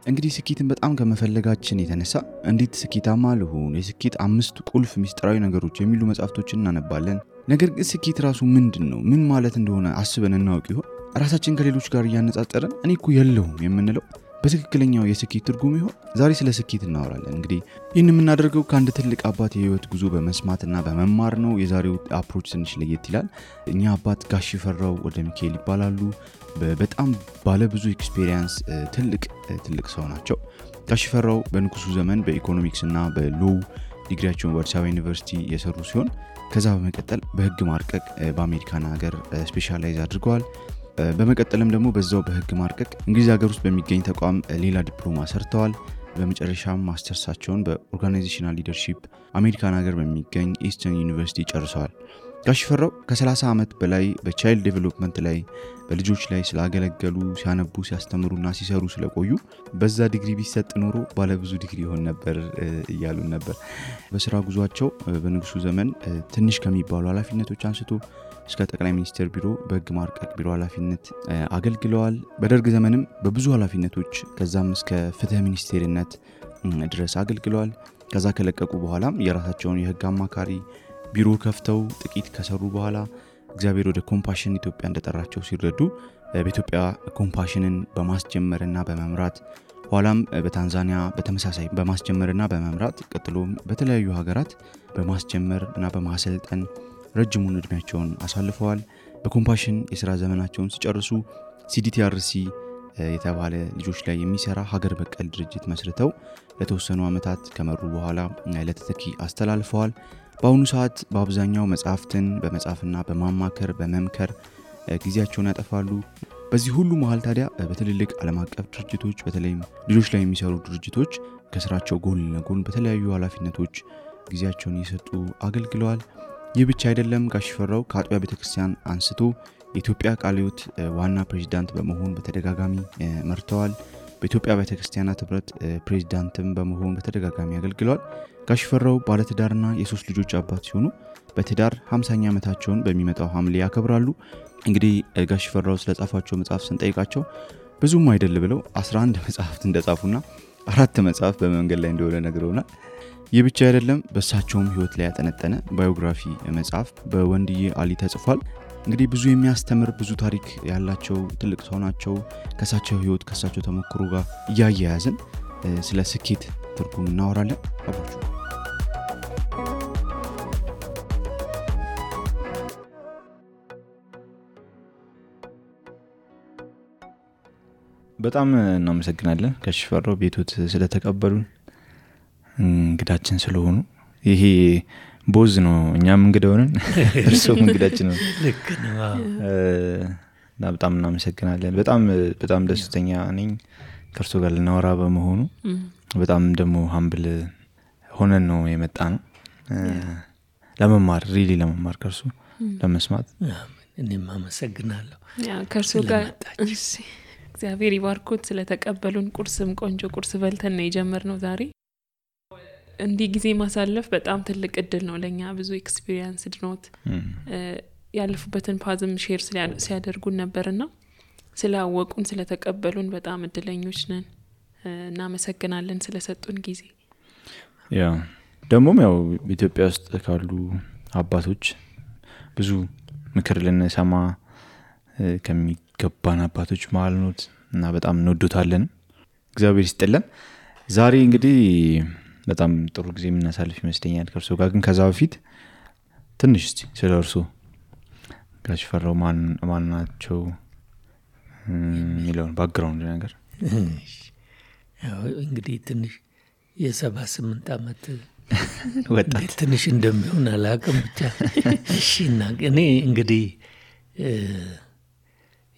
እንግዲህ ስኬትን በጣም ከመፈለጋችን የተነሳ እንዴት ስኬታማ ልሁን፣ የስኬት 5 ቁልፍ ሚስጥራዊ ነገሮች የሚሉ መጽሐፍቶችን እናነባለን። ነገር ግን ስኬት ራሱ ምንድነው? ምን ማለት እንደሆነ አስበን እናውቅ ይሆን? ራሳችን ከሌሎች ጋር እያነጻጸረን እኔ እኮ የለሁም የምንለው በትክክለኛው የስኬት ትርጉም ይሆን? ዛሬ ስለ ስኬት እናወራለን። እንግዲህ ይህን የምናደርገው ከአንድ ትልቅ አባት የህይወት ጉዞ በመስማትና በመማር ነው። የዛሬው አፕሮች ትንሽ ለየት ይላል። እኛ አባት ጋሽ ፈራው ወደ ሚካኤል ይባላሉ። በጣም ባለ ብዙ ኤክስፔሪየንስ ትልቅ ሰው ናቸው። ጋሽ ፈራው በንጉሱ ዘመን በኢኮኖሚክስ እና በሎው ዲግሪያቸውን በአዲስ አበባ ዩኒቨርሲቲ የሰሩ ሲሆን ከዛ በመቀጠል በህግ ማርቀቅ በአሜሪካን ሀገር ስፔሻላይዝ አድርገዋል። በመቀጠልም ደግሞ በዛው በህግ ማርቀቅ እንግሊዝ ሀገር ውስጥ በሚገኝ ተቋም ሌላ ዲፕሎማ ሰርተዋል። በመጨረሻም ማስተርሳቸውን በኦርጋናይዜሽናል ሊደርሺፕ አሜሪካን ሀገር በሚገኝ ኢስተርን ዩኒቨርሲቲ ጨርሰዋል። ጋሽ ፈራው ከ30 ዓመት በላይ በቻይልድ ዴቨሎፕመንት ላይ በልጆች ላይ ስላገለገሉ ሲያነቡ ሲያስተምሩና ሲሰሩ ስለቆዩ በዛ ዲግሪ ቢሰጥ ኖሮ ባለ ብዙ ዲግሪ ይሆን ነበር እያሉን ነበር። በስራ ጉዟቸው በንጉሱ ዘመን ትንሽ ከሚባሉ ኃላፊነቶች አንስቶ እስከ ጠቅላይ ሚኒስትር ቢሮ በህግ ማርቀቅ ቢሮ ኃላፊነት አገልግለዋል። በደርግ ዘመንም በብዙ ኃላፊነቶች ከዛም እስከ ፍትህ ሚኒስቴርነት ድረስ አገልግለዋል። ከዛ ከለቀቁ በኋላም የራሳቸውን የህግ አማካሪ ቢሮ ከፍተው ጥቂት ከሰሩ በኋላ እግዚአብሔር ወደ ኮምፓሽን ኢትዮጵያ እንደጠራቸው ሲረዱ በኢትዮጵያ ኮምፓሽንን በማስጀመርና በመምራት ኋላም በታንዛኒያ በተመሳሳይ በማስጀመርና በመምራት ቀጥሎም በተለያዩ ሀገራት በማስጀመርና በማሰልጠን ረጅሙን እድሜያቸውን አሳልፈዋል። በኮምፓሽን የሥራ ዘመናቸውን ሲጨርሱ CDTRC የተባለ ልጆች ላይ የሚሰራ ሀገር በቀል ድርጅት መስርተው ለተወሰኑ ዓመታት ከመሩ በኋላ ለተተኪ አስተላልፈዋል። በአሁኑ ሰዓት በአብዛኛው መጽሐፍትን በመጻፍና በማማከር በመምከር ጊዜያቸውን ያጠፋሉ። በዚህ ሁሉ መሃል ታዲያ በትልልቅ ዓለም አቀፍ ድርጅቶች በተለይም ልጆች ላይ የሚሰሩ ድርጅቶች ከስራቸው ጎን ለጎን በተለያዩ ኃላፊነቶች ጊዜያቸውን እየሰጡ አገልግለዋል። ይህ ብቻ አይደለም። ጋሽ ፈራው ከአጥቢያ ቤተክርስቲያን አንስቶ የኢትዮጵያ ቃለ ሕይወት ዋና ፕሬዝዳንት በመሆን በተደጋጋሚ መርተዋል። በኢትዮጵያ ቤተክርስቲያናት ህብረት ፕሬዝዳንትም በመሆን በተደጋጋሚ አገልግለዋል። ጋሽ ፈራው ባለትዳርና የ3 ልጆች አባት ሲሆኑ በትዳር 50ኛ ዓመታቸውን በሚመጣው ሐምሌ ያከብራሉ። እንግዲህ ጋሽ ፈራው ስለጻፏቸው መጽሐፍ ስንጠይቃቸው ብዙም አይደል ብለው 11 መጽሐፍት እንደጻፉና 4 መጽሐፍ በመንገድ ላይ እንደሆነ ነግረውናል። ይህ ብቻ አይደለም። በእሳቸውም ህይወት ላይ ያጠነጠነ ባዮግራፊ መጽሐፍ በወንድዬ አሊ ተጽፏል። እንግዲህ ብዙ የሚያስተምር ብዙ ታሪክ ያላቸው ትልቅ ሰው ናቸው። ከሳቸው ህይወት ከሳቸው ተሞክሮ ጋር እያያያዝን ስለ ስኬት ትርጉም እናወራለን። አብራችሁ በጣም እናመሰግናለን ጋሽ ፈራው ቤቶት ስለተቀበሉን እንግዳችን ስለሆኑ። ይሄ ቦዝ ነው፣ እኛም እንግዳ ሆነን እርሶም እንግዳችን ነው። ልክ ነው። በጣም እናመሰግናለን። በጣም ደስተኛ ነኝ ከእርሶ ጋር ልናወራ በመሆኑ። በጣም ደግሞ ሀምብል ሆነን ነው የመጣ ነው ለመማር ከእርሶ ለመስማት። እኔም አመሰግናለሁ ከእርሶ ጋር። እግዚአብሔር ይባርኮት ስለተቀበሉን። ቁርስም ቆንጆ ቁርስ በልተን ነው የጀመርነው ዛሬ። እንዲህ ጊዜ ማሳለፍ በጣም ትልቅ እድል ነው ለኛ። ብዙ ኤክስፒሪየንስ ድኖት ያለፉበትን ፓዝም ሼር ሲያደርጉን ነበርና ስላወቁን ስለተቀበሉን በጣም እድለኞች ነን። እናመሰግናለን ስለሰጡን ጊዜ። ደግሞም ያው ኢትዮጵያ ውስጥ ካሉ አባቶች ብዙ ምክር ልንሰማ ከሚገባን አባቶች መሃል ነዎት እና በጣም እንወዶታለን። እግዚአብሔር ይስጥልን። ዛሬ እንግዲህ በጣም ጥሩ ጊዜ የምናሳልፍ ይመስለኛል ከእርሶ ጋር። ግን ከዛ በፊት ትንሽ እስቲ ስለ እርሶ ጋሽ ፈራው ማን ናቸው የሚለውን ባክግራውንድ ነገር። ያው እንግዲህ ትንሽ የ78 ዓመት ወጣት ትንሽ እንደሚሆን አላውቅም ብቻ። እሺና እኔ እንግዲህ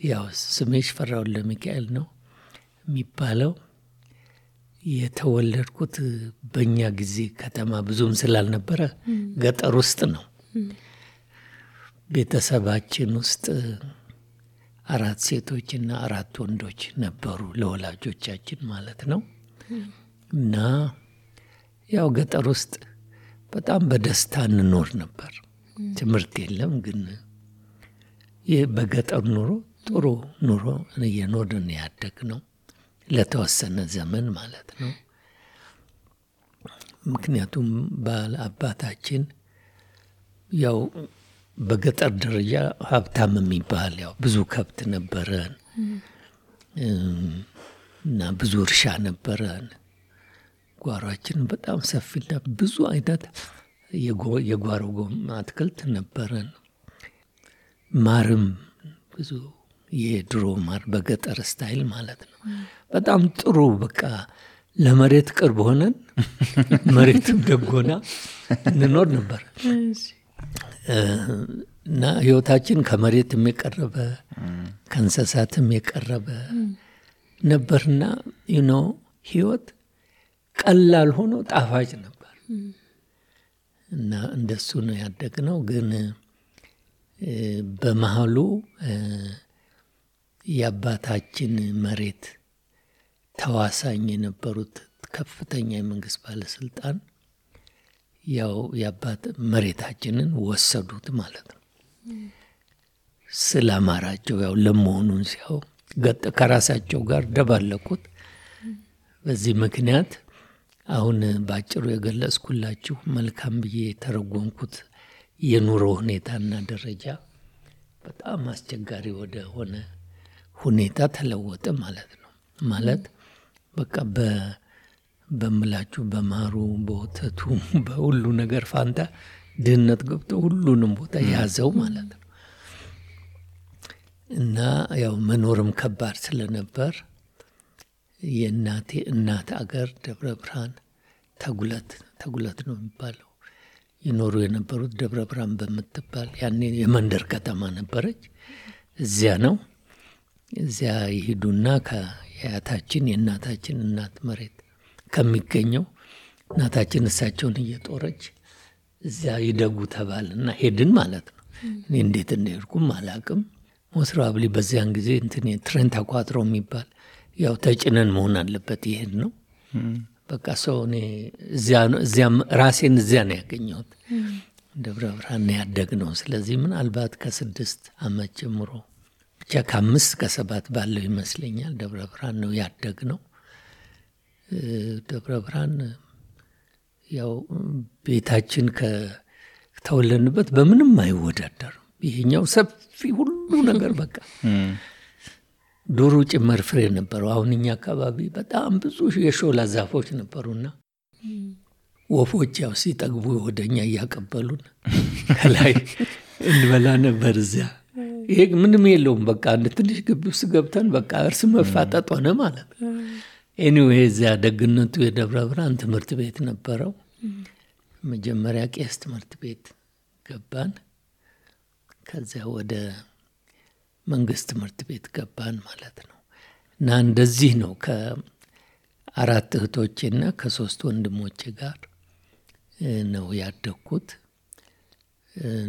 ያው ስሜ ፈራው ለሚካኤል ነው የሚባለው። የተወለድኩት በእኛ ጊዜ ከተማ ብዙም ስላልነበረ ገጠር ውስጥ ነው። ቤተሰባችን ውስጥ 4 ሴቶችና 4 ወንዶች ነበሩ፣ ለወላጆቻችን ማለት ነው። እና ያው ገጠር ውስጥ በጣም በደስታ እንኖር ነበር። ትምህርት የለም፣ ግን በገጠር ኑሮ ጥሩ ኑሮ እየኖርን ያደግነው ለተወሰነ ዘመን ማለት ነው። ምክንያቱም አባታችን ያው በገጠር ደረጃ ሀብታም የሚባል ያው ብዙ ከብት ነበረን እና ብዙ እርሻ ነበረን። ጓሯችን በጣም ሰፊና ብዙ አይነት የጓሮ አትክልት ነበረን። ማርም ብዙ የድሮ ማር በገጠር ስታይል ማለት ነው። በጣም ጥሩ በቃ ለመሬት ቅርብ ሆነን መሬትም ደጎና እንኖር ነበር እና ህይወታችን ከመሬትም የቀረበ ከእንስሳትም የቀረበ ነበርና ህይወት ቀላል ሆኖ ጣፋጭ ነበር እና እንደሱ ነው ያደግነው። ግን በመሃሉ የአባታችን መሬት ተዋሳኝ የነበሩት ከፍተኛ የመንግስት ባለስልጣን ያው የአባት መሬታችንን ወሰዱት ማለት ነው። ስላማራቸው ያው ለመሆኑን ሲያው ከራሳቸው ጋር ደባለቁት። በዚህ ምክንያት አሁን ባጭሩ የገለጽኩላችሁ መልካም ብዬ የተረጎምኩት የኑሮ ሁኔታና ደረጃ በጣም አስቸጋሪ ወደ ሆነ ሁኔታ ተለወጠ ማለት ነው። ማለት በቃ በምላችሁ በማሩ በወተቱ በሁሉ ነገር ፋንታ ድህነት ገብቶ ሁሉንም ቦታ ያዘው ማለት ነው። እና ያው መኖርም ከባድ ስለነበር የእናቴ እናት አገር ደብረ ብርሃን ተጉለት ነው የሚባለው ይኖሩ የነበሩት ደብረ ብርሃን በምትባል ያኔ የመንደር ከተማ ነበረች። እዚያ ነው እዚያ ይሄዱና ከያታችን የእናታችን እናት መሬት ከሚገኘው እናታችን እሳቸውን እየጦረች እዚያ ይደጉ ተባልና ሄድን ማለት ነው። እኔ እንዴት እንደሄድኩም አላቅም። ሞስራብሊ በዚያን ጊዜ ትሬን ተቋጥሮ የሚባል ያው ተጭነን መሆን አለበት ይሄድ ነው። በቃ ሰው እኔ እዚያ ራሴን እዚያ ነው ያገኘሁት። ደብረ ብርሃን ያደግነው። ስለዚህ ምናልባት ከ6 ዓመት ጀምሮ ብቻ ከ5 ከ7 ባለው ይመስለኛል ደብረ ብርሃን ነው ያደግነው። ደብረ ብርሃን ያው ቤታችን ከተወለድንበት በምንም አይወዳደርም። ይሄኛው ሰፊ ሁሉ ነገር በቃ ዱሩ ጭምር ፍሬ ነበረው። አሁን እኛ አካባቢ በጣም ብዙ የሾላ ዛፎች ነበሩና ወፎች ያው ሲጠግቡ ወደኛ እያቀበሉን ከላይ እንበላ ነበር እዚያ። ይሄ ምንም የለውም በቃ አንድ ትንሽ ግቢ ውስጥ ገብተን በቃ እርስ መፋጠጥ ሆነ ማለት ነው። ኤኒዌይ እዚያ ደግነቱ የደብረ ብርሃን ትምህርት ቤት ነበረው። መጀመሪያ ቄስ ትምህርት ቤት ገባን። ከዚያ ወደ መንግስት ትምህርት ቤት ገባን ማለት ነው። እና እንደዚህ ነው ከ4 እህቶቼና ከ3 ወንድሞቼ ጋር ነው ያደግኩት።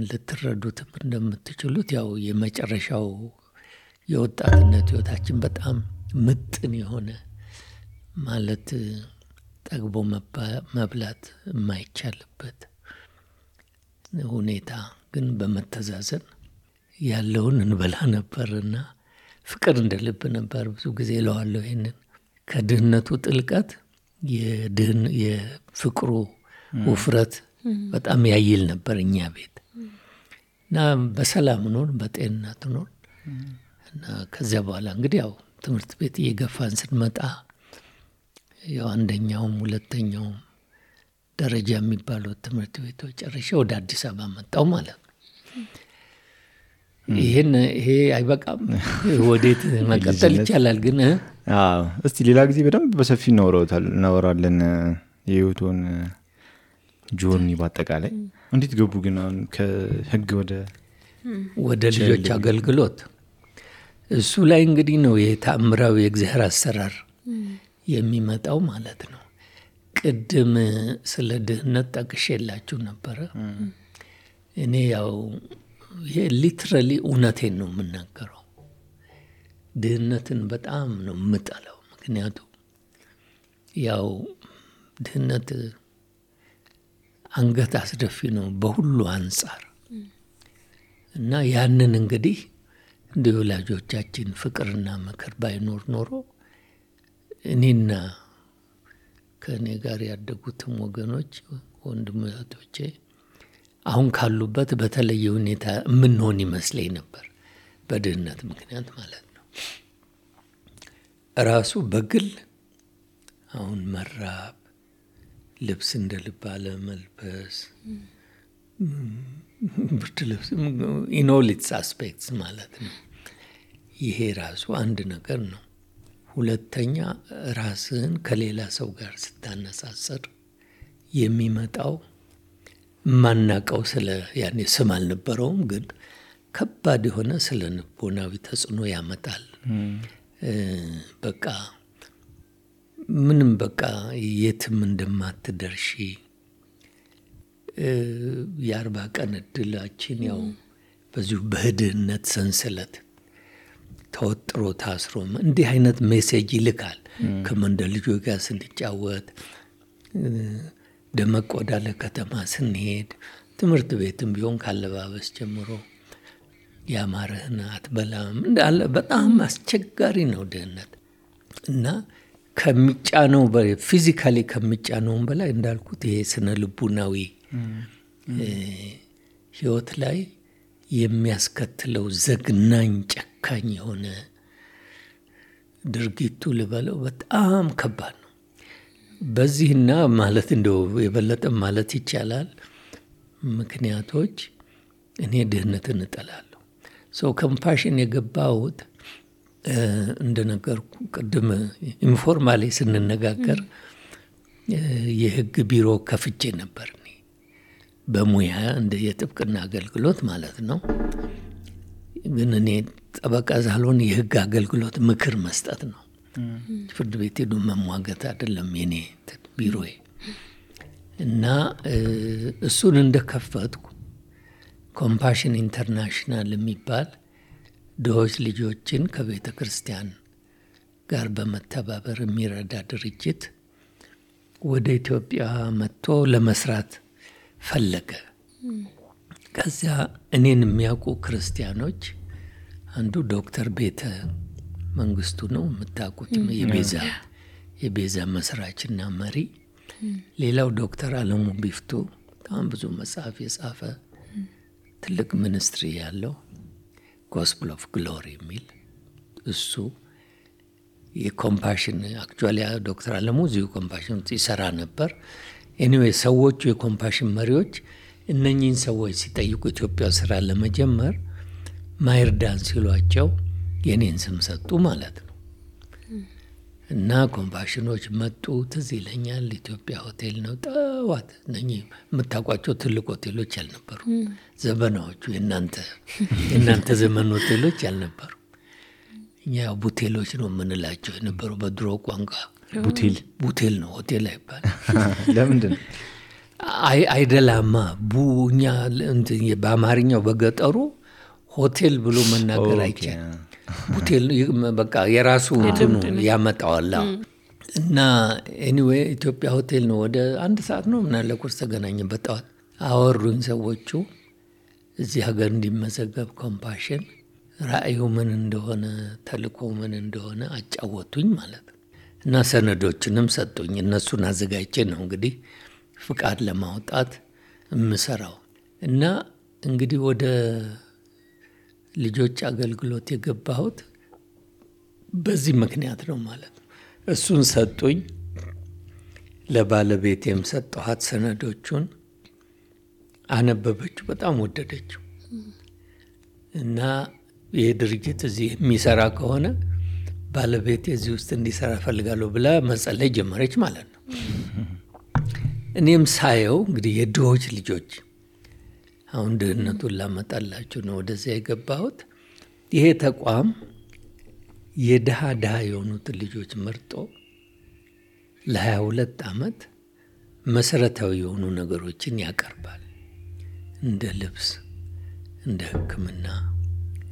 ልትረዱትም እንደምትችሉት ያው የመጨረሻው የወጣትነት ህይወታችን በጣም ምጥን የሆነ ማለት ጠግቦ መብላት የማይቻልበት ሁኔታ ግን በመተዛዘን ያለውን እንበላ ነበርና ፍቅር እንደልብ ነበር። ብዙ ጊዜ እለዋለሁ ይሄንን ከድህነቱ ጥልቀት የፍቅሩ ውፍረት በጣም ያይል ነበር እኛ ቤት እና በሰላም ኖር በጤንነት ኖር እና ከዚያ በኋላ እንግዲህ ያው ትምህርት ቤት እየገፋን ስንመጣ ያው አንደኛውም ሁለተኛውም ደረጃ የሚባሉት ትምህርት ቤቶች ጨርሼ ወደ አዲስ አበባ መጣሁ ማለት ነው። ይሄ አይበቃም ወዴት መቀጠል ይቻላል ግን እስቲ ሌላ ጊዜ በደንብ በሰፊ እናወራለን የህይወቱን ጆርኒ ባጠቃላይ። እንዴት ገቡ ግን ከህግ ወደ ልጆች አገልግሎት? እሱ ላይ እንግዲህ ነው የተአምራዊ የእግዚአብሔር አሰራር የሚመጣው ማለት ነው። ቅድም ስለ ድህነት ጠቅሼላችሁ ነበረ። እኔ ያው ይሄ ሊትራሊ እውነቴን ነው የምናገረው። ድህነትን በጣም ነው የምጠላው። ምክንያቱም ያው ድህነት አንገት አስደፊ ነው በሁሉ አንጻር እና ያንን እንግዲህ እንደ ወላጆቻችን ፍቅርና ምክር ባይኖር ኖሮ እኔና ከእኔ ጋር ያደጉትም ወገኖች ወንድሞቼ አሁን ካሉበት በተለየ ሁኔታ የምንሆን ይመስለኝ ነበር፣ በድህነት ምክንያት ማለት ነው። ራሱ በግል አሁን መራብ፣ ልብስ እንደ ልብ አለመልበስ፣ ብርድ ልብስ ኢን ኦል ኢትስ አስፔክትስ ማለት ነው። ይሄ ራሱ አንድ ነገር ነው። ሁለተኛ ራስህን ከሌላ ሰው ጋር ስታነሳሰር የሚመጣው ማናቀው ስለ ያኔ ስም አልነበረውም፣ ግን ከባድ የሆነ ስለ ልቦናዊ ተጽዕኖ ያመጣል። በቃ ምንም በቃ የትም እንደማትደርሺ 40 ቀን እድላችን ያው በዚሁ በድህነት ሰንሰለት ተወጥሮ ታስሮ እንዲህ አይነት ሜሴጅ ይልካል። ከመንደር ልጆች ጋር ስንጫወት፣ ደመቅ ወዳለ ከተማ ስንሄድ፣ ትምህርት ቤትም ቢሆን ካለባበስ ጀምሮ ያማረህን አትበላም እንዳለ በጣም አስቸጋሪ ነው ድህነት። እና ከሚጫነው ፊዚካሊ ከሚጫነውም በላይ እንዳልኩት ይሄ ስነ ልቡናዊ ህይወት ላይ የሚያስከትለው ዘግናኝ ጨካኝ የሆነ ድርጊቱ ልበለው በጣም ከባድ ነው። በዚህና ማለት እንደው የበለጠ ማለት ይቻላል ምክንያቶች እኔ ድህነትን እጠላለሁ። ሰው ኮምፓሽን የገባሁት እንደነገርኩ ቅድም ኢንፎርማሊ ስንነጋገር የህግ ቢሮ ከፍቼ ነበር እኔ በሙያ እንደ የጥብቅና አገልግሎት ማለት ነው። ግን እኔ ጠበቃ ሳልሆን የህግ አገልግሎት ምክር መስጠት ነው። ፍርድ ቤት ሄዶ መሟገት አይደለም የኔ ቢሮዬ። እና እሱን እንደከፈትኩ ኮምፓሽን ኢንተርናሽናል የሚባል ድሆች ልጆችን ከቤተ ክርስቲያን ጋር በመተባበር የሚረዳ ድርጅት ወደ ኢትዮጵያ መጥቶ ለመስራት ፈለገ። ከዚያ እኔን የሚያውቁ ክርስቲያኖች አንዱ ዶክተር ቤተ መንግስቱ ነው የምታውቁት፣ የቤዛ መስራችና መሪ። ሌላው ዶክተር አለሙ ቢፍቱ በጣም ብዙ መጽሐፍ የጻፈ ትልቅ ሚኒስትሪ ያለው ጎስፕል ኦፍ ግሎሪ የሚል እሱ የኮምፓሽን አክቹዋሊ ዶክተር አለሙ እዚሁ ኮምፓሽን ይሰራ ነበር። ኤኒዌይ ሰዎቹ የኮምፓሽን መሪዎች እነኚህን ሰዎች ሲጠይቁ ኢትዮጵያ ስራ ለመጀመር ማይርዳን ሲሏቸው የኔን ስም ሰጡ ማለት ነው። እና ኮምፓሽኖች መጡ። ትዝ ይለኛል ኢትዮጵያ ሆቴል ነው ጠዋት። እነኚህ የምታውቋቸው ትልቅ ሆቴሎች ያልነበሩ ዘመናዎቹ የእናንተ ዘመን ሆቴሎች ያልነበሩ። እኛ ቡቴሎች ነው የምንላቸው የነበሩ በድሮ ቋንቋ። ቡቴል ነው ሆቴል አይባል። ለምንድን ነው አይደላማ? እኛ በአማርኛው በገጠሩ ሆቴል ብሎ መናገር አይቻልም። ቡቴል በቃ የራሱ ያመጣዋል። እና ኤኒዌይ ኢትዮጵያ ሆቴል ነው። ወደ 1 ሰዓት ነው ምናለ ቁርስ ተገናኘን በጠዋት። አወሩኝ ሰዎቹ እዚህ ሀገር እንዲመዘገብ ኮምፓሽን ራእዩ ምን እንደሆነ ተልእኮ ምን እንደሆነ አጫወቱኝ ማለት ነው። እና ሰነዶችንም ሰጡኝ። እነሱን አዘጋጅቼ ነው እንግዲህ ፍቃድ ለማውጣት የምሰራው። እና እንግዲህ ወደ ልጆች አገልግሎት የገባሁት በዚህ ምክንያት ነው ማለት ነው። እሱን ሰጡኝ። ለባለቤቴም ሰጠኋት ሰነዶቹን። አነበበችው፣ በጣም ወደደችው። እና ይህ ድርጅት እዚህ የሚሰራ ከሆነ ባለቤቴ እዚህ ውስጥ እንዲሰራ ፈልጋለሁ ብላ መጸለይ ጀመረች ማለት ነው። እኔም ሳየው እንግዲህ የድሆች ልጆች አሁን ድህነቱን ላመጣላችሁ ነው ወደዚያ የገባሁት። ይሄ ተቋም የድሃ የሆኑትን ልጆች መርጦ ለ22 ዓመት መሰረታዊ የሆኑ ነገሮችን ያቀርባል። እንደ ልብስ፣ እንደ ሕክምና፣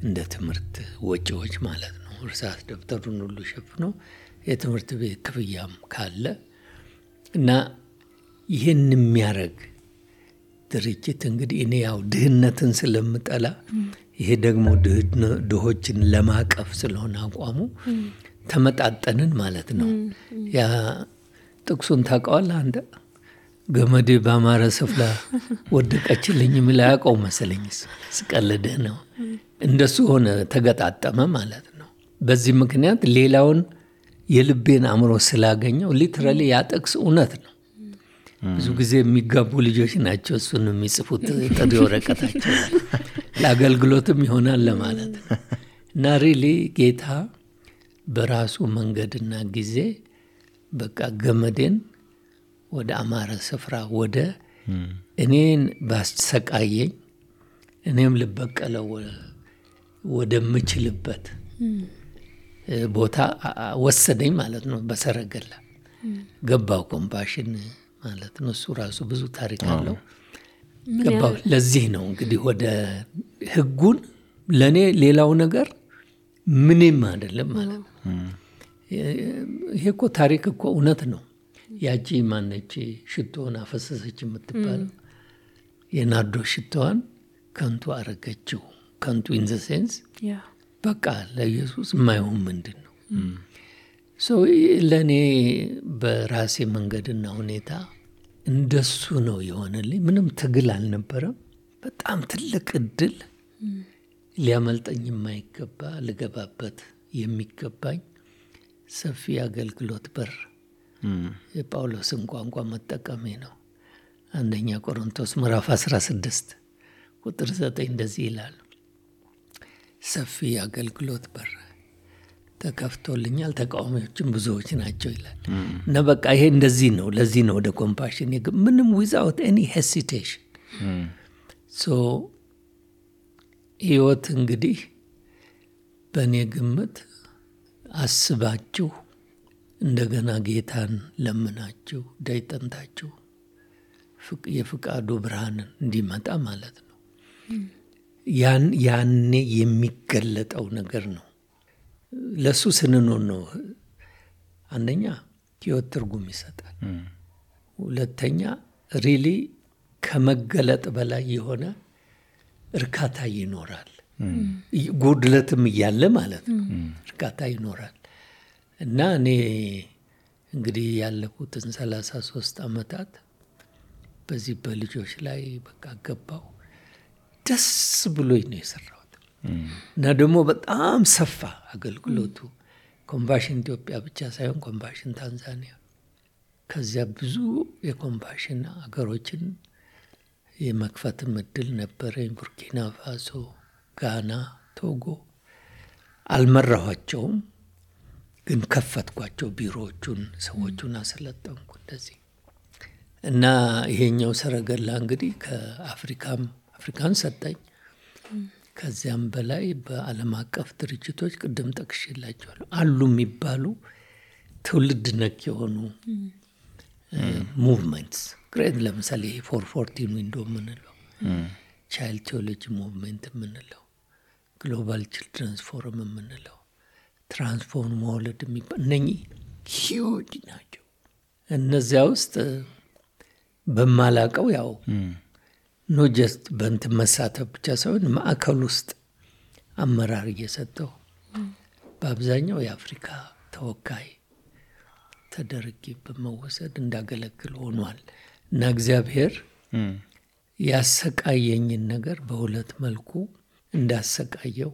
እንደ ትምህርት ወጪዎች ማለት ነው። እርሳስ ደብተሩን ሁሉ ሸፍኖ የትምህርት ቤት ክፍያም ካለ እና ይህን የሚያደርግ ድርጅት እንግዲህ እኔ ያው ድህነትን ስለምጠላ ይሄ ደግሞ ድሆችን ለማቀፍ ስለሆነ አቋሙ ተመጣጠንን ማለት ነው። ያ ጥቅሱን ታውቀዋለህ አንተ? ገመዴ ባማረ ስፍራ ወደቀችልኝ የሚል አያውቀው መሰለኝ። ስቀልድህ ነው። እንደሱ ሆነ፣ ተገጣጠመ ማለት ነው። በዚህ ምክንያት ሌላውን የልቤን አእምሮ ስላገኘው ሊትራሊ ያ ጥቅስ እውነት ነው። ብዙ ጊዜ የሚጋቡ ልጆች ናቸው እሱን የሚጽፉት ጥሪ ወረቀታቸው ለአገልግሎትም ይሆናል ለማለት ነው። እና ሪሊ ጌታ በራሱ መንገድና ጊዜ በቃ ገመዴን ወደ አማረ ስፍራ ወደ እኔን ባሰቃየኝ እኔም ልበቀለው ወደምችልበት ቦታ ወሰደኝ ማለት ነው። በሰረገላ ገባው ኮምፓሽን ማለት ነው። እሱ ራሱ ብዙ ታሪክ አለው። ገባው። ለዚህ ነው እንግዲህ ወደ ህጉን ለኔ ሌላው ነገር ምንም አይደለም ማለት ነው። ይሄ እኮ ታሪክ እኮ እውነት ነው። ያቺ ማነች ሽቶን አፈሰሰች የምትባለው የናርዶ ሽቶዋን ከንቱ አረገችው። ከንቱ ኢን ዘ ሴንስ በቃ ለኢየሱስ የማይሆን ምንድን ነው? ለእኔ በራሴ መንገድና ሁኔታ እንደሱ ነው የሆነልኝ። ምንም ትግል አልነበረም። በጣም ትልቅ እድል፣ ሊያመልጠኝ የማይገባ ልገባበት የሚገባኝ ሰፊ አገልግሎት በር የጳውሎስን ቋንቋ መጠቀሜ ነው። አንደኛ ቆሮንቶስ ምዕራፍ 16 ቁጥር 9 እንደዚህ ይላል፣ ሰፊ አገልግሎት በር ተከፍቶልኛል፣ ተቃዋሚዎችም ብዙዎች ናቸው ይላል። እና በቃ ይሄ እንደዚህ ነው። ለዚህ ነው ወደ ኮምፓሽን ምንም ዊዛውት ኤኒ ሄሲቴሽን። ህይወት እንግዲህ በእኔ ግምት አስባችሁ እንደገና ጌታን ለምናችሁ ዳይጠንታችሁ የፍቃዱ ብርሃንን እንዲመጣ ማለት ነው። ያኔ የሚገለጠው ነገር ነው። ለሱ ስንኖር ነው አንደኛ ህይወት ትርጉም ይሰጣል። ሁለተኛ ሪሊ ከመገለጥ በላይ የሆነ እርካታ ይኖራል። ጉድለትም እያለ ማለት ነው እርካታ ይኖራል። እና እኔ እንግዲህ ያለፉትን 33 ዓመታት በዚህ በልጆች ላይ በቃ ገባው። ደስ ብሎኝ ነው የሰራሁት። እና ደግሞ በጣም ሰፋ አገልግሎቱ። ኮምፓሽን ኢትዮጵያ ብቻ ሳይሆን ኮምፓሽን ታንዛኒያ፣ ከዚያ ብዙ የኮምፓሽን አገሮችን የመክፈት እድል ነበረኝ። ቡርኪና ፋሶ፣ ጋና፣ ቶጎ። አልመራኋቸውም ግን ከፈትኳቸው ቢሮዎቹን፣ ሰዎቹን አሰለጠንኩ እንደዚህ። እና ይሄኛው ሰረገላ እንግዲህ አፍሪካን ሰጠኝ። ከዚያም በላይ በዓለም አቀፍ ድርጅቶች ቅድም ጠቅሼላቸዋለሁ አሉ የሚባሉ ትውልድ ነክ የሆኑ ሙቭመንትስ ግሬት። ለምሳሌ 414 ዊንዶ የምንለው፣ ቻይልድ ቴዎሎጂ ሙቭመንት የምንለው፣ ግሎባል ችልድረንስ ፎረም የምንለው፣ ትራንስፎርም ወርልድ የሚባል እነኚህ ሂውጅ ናቸው። እነዚያ ውስጥ በማላቀው ያው ኖ ጀስት በእንትን መሳተፍ ብቻ ሳይሆን ማዕከል ውስጥ አመራር እየሰጠው በአብዛኛው የአፍሪካ ተወካይ ተደርጌ በመወሰድ እንዳገለግል ሆኗል። እና እግዚአብሔር ያሰቃየኝን ነገር በሁለት መልኩ እንዳሰቃየው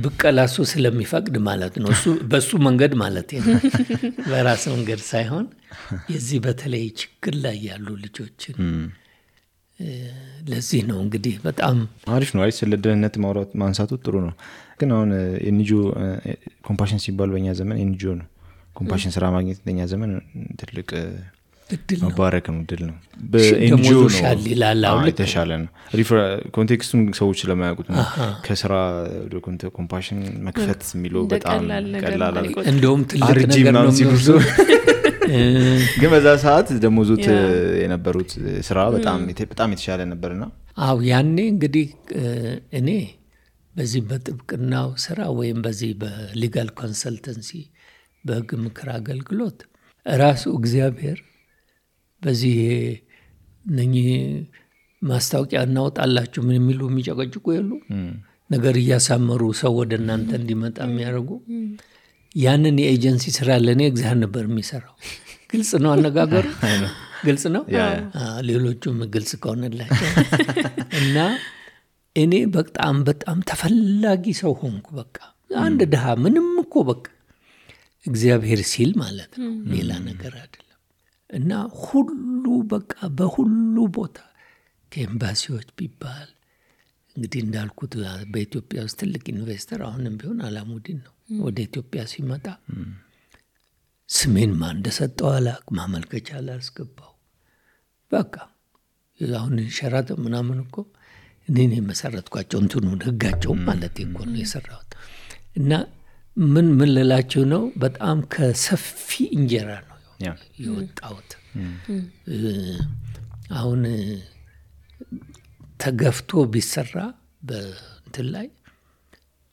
ብቀላሱ ስለሚፈቅድ ማለት ነው። በሱ መንገድ ማለት ነው፣ በራስ መንገድ ሳይሆን የዚህ በተለይ ችግር ላይ ያሉ ልጆችን ለዚህ ነው እንግዲህ በጣም አሪፍ ነው። ስለ ደህንነት ማውራት ማንሳቱ ጥሩ ነው። ግን አሁን ኤንጂኦ ኮምፓሽን ሲባል በእኛ ዘመን ኤንጂኦ ነው። ኮምፓሽን ስራ ማግኘት በእኛ ዘመን ትልቅ እድል ነው፣ መባረክ ነው፣ እድል ነው። በኤንጂኦ ነው የተሻለ ነው። ኮንቴክስቱን ሰዎች ስለማያውቁት ነው። ከስራ ወደ ኮምፓሽን መክፈት የሚለው በጣም ቀላል ነው። እንደውም ትልቅ ነገር ነው የሚወስደው። ግን በዛ ሰዓት ደግሞ ዙት የነበሩት ስራ በጣም የተሻለ ነበርና አው ያኔ እንግዲህ እኔ በዚህ በጥብቅናው ስራ ወይም በዚህ በሊጋል ኮንሰልተንሲ በህግ ምክር አገልግሎት ራሱ እግዚአብሔር በዚህ ነኚህ ማስታወቂያ እናወጣላችሁ ምን የሚሉ የሚጨቀጭቁ የሉ ነገር እያሳመሩ ሰው ወደ እናንተ እንዲመጣ የሚያደርጉ ያንን የኤጀንሲ ስራ ለእኔ እግዚአብሔር ነበር የሚሰራው። ግልጽ ነው አነጋገሩ፣ ግልጽ ነው። ሌሎቹም ግልጽ ከሆነላቸው እና እኔ በጣም በጣም ተፈላጊ ሰው ሆንኩ። በቃ አንድ ድሃ ምንም እኮ በቃ እግዚአብሔር ሲል ማለት ነው፣ ሌላ ነገር አይደለም። እና ሁሉ በቃ በሁሉ ቦታ ከኤምባሲዎች ቢባል እንግዲህ እንዳልኩት በኢትዮጵያ ውስጥ ትልቅ ኢንቨስተር አሁንም ቢሆን አላሙዲን ነው። ወደ ኢትዮጵያ ሲመጣ ስሜን ማን እንደሰጠው አላውቅም፣ ማመልከቻ አላስገባው። በቃ አሁን ሸራተን ምናምን እኮ እኔን የመሰረትኳቸው እንትኑን ህጋቸው ማለት እኮ ነው የሰራሁት። እና ምን ልላችሁ ነው፣ በጣም ከሰፊ እንጀራ ነው የወጣሁት። አሁን ተገፍቶ ቢሰራ በእንትን ላይ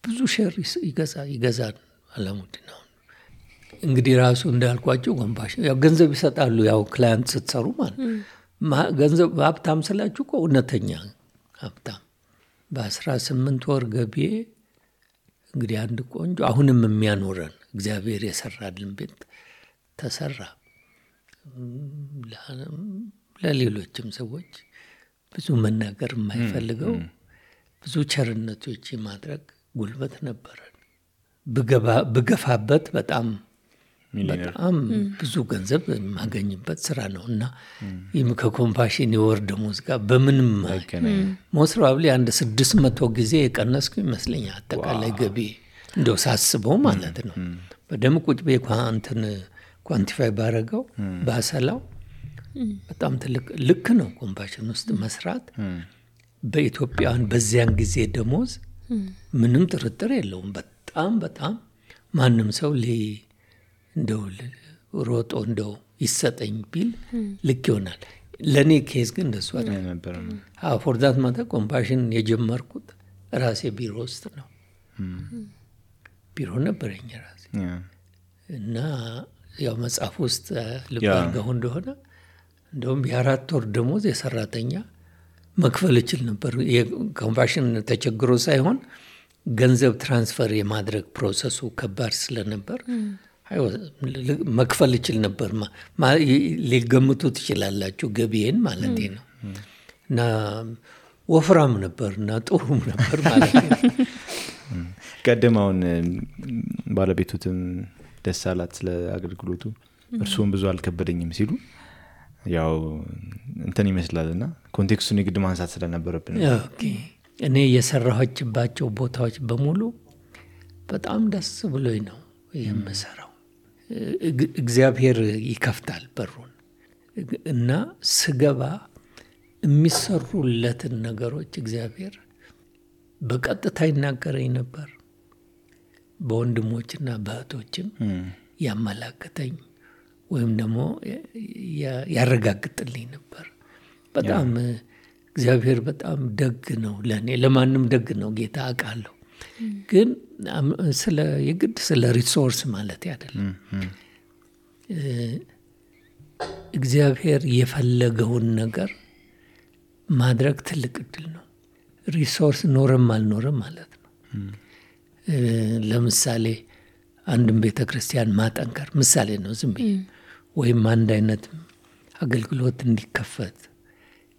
ብዙ ሸር ይገዛል አላሙዲን። አሁን እንግዲህ ራሱ እንዳልኳቸው ኮምፓሽን ያው ገንዘብ ይሰጣሉ፣ ያው ክላይንት ስትሰሩ ማለት ገንዘብ ሀብታም ስላችሁ እኮ እውነተኛ ሀብታም። በ18 ወር ገቢ እንግዲህ አንድ ቆንጆ አሁንም የሚያኖረን እግዚአብሔር የሰራልን ቤት ተሰራ። ለሌሎችም ሰዎች ብዙ መናገር የማይፈልገው ብዙ ቸርነቶች ማድረግ ጉልበት ነበረን። ብገፋበት በጣም ብዙ ገንዘብ የማገኝበት ስራ ነው እና ይህም ከኮምፓሽን የወር ደሞዝ ጋር በምንም ሞስራብሊ አንድ 600 ጊዜ የቀነስኩ ይመስለኛል አጠቃላይ ገቢ እንደው ሳስበው ማለት ነው። በደም ቁጭ እንትን ኳንቲፋይ ባረገው ባሰላው በጣም ትልቅ ልክ ነው ኮምፓሽን ውስጥ መስራት። በኢትዮጵያውያን በዚያን ጊዜ ደሞዝ ምንም ጥርጥር የለውም። በጣም በጣም ማንም ሰው እንደው ሮጦ እንደው ይሰጠኝ ቢል ልክ ይሆናል። ለእኔ ኬዝ ግን እንደሱ ነበር። ፎርዛት ማታ ኮምፓሽን የጀመርኩት ራሴ ቢሮ ውስጥ ነው። ቢሮ ነበረኝ ራሴ እና ያው መጽሐፍ ውስጥ ልብ አድርገው እንደሆነ እንደውም የ4 ወር ደሞዝ የሰራተኛ መክፈል እችል ነበር። የኮምፓሽን ተቸግሮ ሳይሆን ገንዘብ ትራንስፈር የማድረግ ፕሮሰሱ ከባድ ስለነበር መክፈል እችል ነበር። ሊገምቱ ትችላላችሁ ገቢዬን ማለት ነው። እና ወፍራም ነበር እና ጥሩም ነበር ማለት ነው። ቀደማውን ባለቤቱትም ደስ አላት ስለ አገልግሎቱ፣ እርሱም ብዙ አልከበደኝም ሲሉ ያው እንትን ይመስላልና ኮንቴክስቱን የግድ ማንሳት ስለነበረብን እኔ የሰራኋችባቸው ቦታዎች በሙሉ በጣም ደስ ብሎኝ ነው የምሰራው። እግዚአብሔር ይከፍታል በሩን እና ስገባ የሚሰሩለትን ነገሮች እግዚአብሔር በቀጥታ ይናገረኝ ነበር። በወንድሞችና በእህቶችም ያመላክተኝ ወይም ደግሞ ያረጋግጥልኝ ነበር። በጣም እግዚአብሔር በጣም ደግ ነው ለእኔ። ለማንም ደግ ነው ጌታ አውቃለሁ። ግን የግድ ስለ ሪሶርስ ማለት አይደለም። እግዚአብሔር የፈለገውን ነገር ማድረግ ትልቅ እድል ነው። ሪሶርስ ኖረም አልኖረም ማለት ነው። ለምሳሌ አንድም ቤተክርስቲያን ማጠንከር ምሳሌ ነው ዝም ብዬ፣ ወይም አንድ አይነት አገልግሎት እንዲከፈት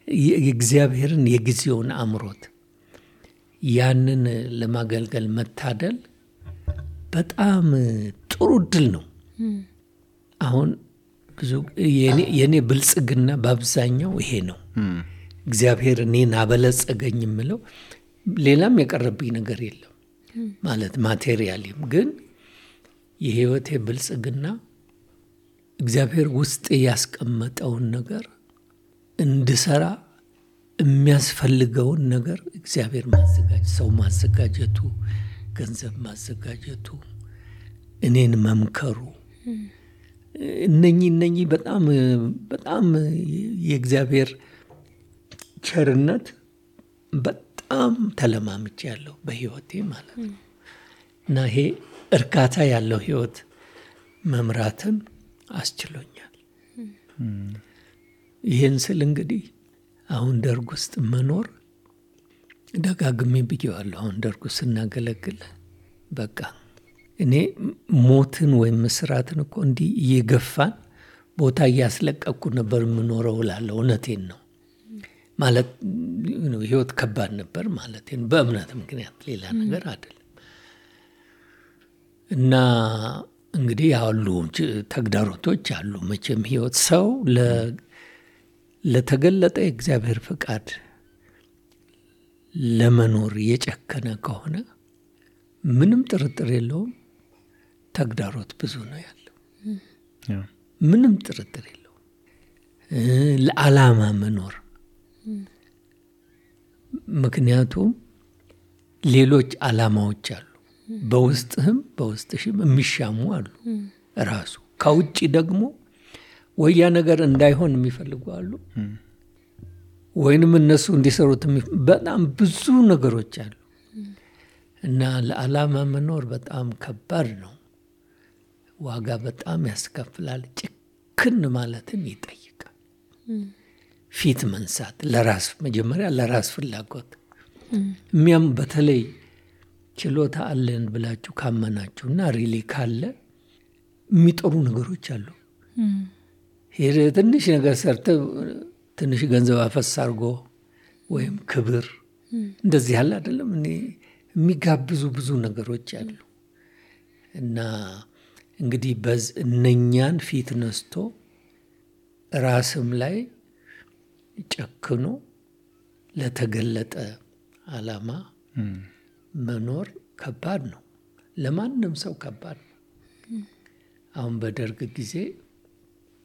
የእግዚአብሔርን የጊዜውን አምሮት ያንን ለማገልገል መታደል በጣም ጥሩ እድል ነው። አሁን ብዙ የኔ ብልጽግና በአብዛኛው ይሄ ነው። እግዚአብሔር እኔን አበለጸገኝ የምለው ሌላም የቀረብኝ ነገር የለም ማለት ማቴሪያልም፣ ግን የህይወቴ ብልጽግና እግዚአብሔር ውስጥ ያስቀመጠውን ነገር እንድሰራ የሚያስፈልገውን ነገር እግዚአብሔር ሰው ማዘጋጀቱ፣ ገንዘብ ማዘጋጀቱ፣ እኔን መምከሩ፣ እነኚህ በጣም በጣም የእግዚአብሔር ቸርነት በጣም ተለማምጬ ያለው በህይወቴ ማለት ነው። እና ይሄ እርካታ ያለው ህይወት መምራትን አስችሎኛል። ይህን ስል እንግዲህ አሁን ደርግ ውስጥ መኖር ደጋግሜ ብዬዋለሁ። አሁን ደርግ ውስጥ ስናገለግል በቃ እኔ ሞትን ወይም እስራትን እኮ እንዲህ እየገፋን ቦታ እያስለቀቅኩ ነበር የምኖረው እላለሁ። እውነቴን ነው ማለት ህይወት ከባድ ነበር ማለት ነው፣ በእምነት ምክንያት ሌላ ነገር አይደለም። እና እንግዲህ ያሉ ተግዳሮቶች አሉ መቼም ህይወት ሰው ለተገለጠ የእግዚአብሔር ፍቃድ ለመኖር የጨከነ ከሆነ ምንም ጥርጥር የለውም ተግዳሮት ብዙ ነው ያለው። ምንም ጥርጥር የለውም። ለዓላማ መኖር ምክንያቱም ሌሎች ዓላማዎች አሉ፣ በውስጥህም በውስጥሽም የሚሻሙ አሉ። ራሱ ከውጭ ደግሞ ወያ ነገር እንዳይሆን የሚፈልጉ አሉ፣ ወይንም እነሱ እንዲሰሩት በጣም ብዙ ነገሮች አሉ። እና ለዓላማ መኖር በጣም ከባድ ነው። ዋጋ በጣም ያስከፍላል። ጭክን ማለትን ይጠይቃል። ፊት መንሳት ለራስ መጀመሪያ ለራስ ፍላጎት የሚያም በተለይ ችሎታ አለን ብላችሁ ካመናችሁና ሪሊ ካለ የሚጠሩ ነገሮች አሉ። ሄደ ትንሽ ነገር ሰርተ ትንሽ ገንዘብ አፈስ አድርጎ ወይም ክብር እንደዚህ ያለ አይደለም እኔ የሚጋብዙ ብዙ ነገሮች አሉ። እና እንግዲህ እነኛን ፊት ነስቶ ራስም ላይ ጨክኖ ለተገለጠ ዓላማ መኖር ከባድ ነው። ለማንም ሰው ከባድ ነው። አሁን በደርግ ጊዜ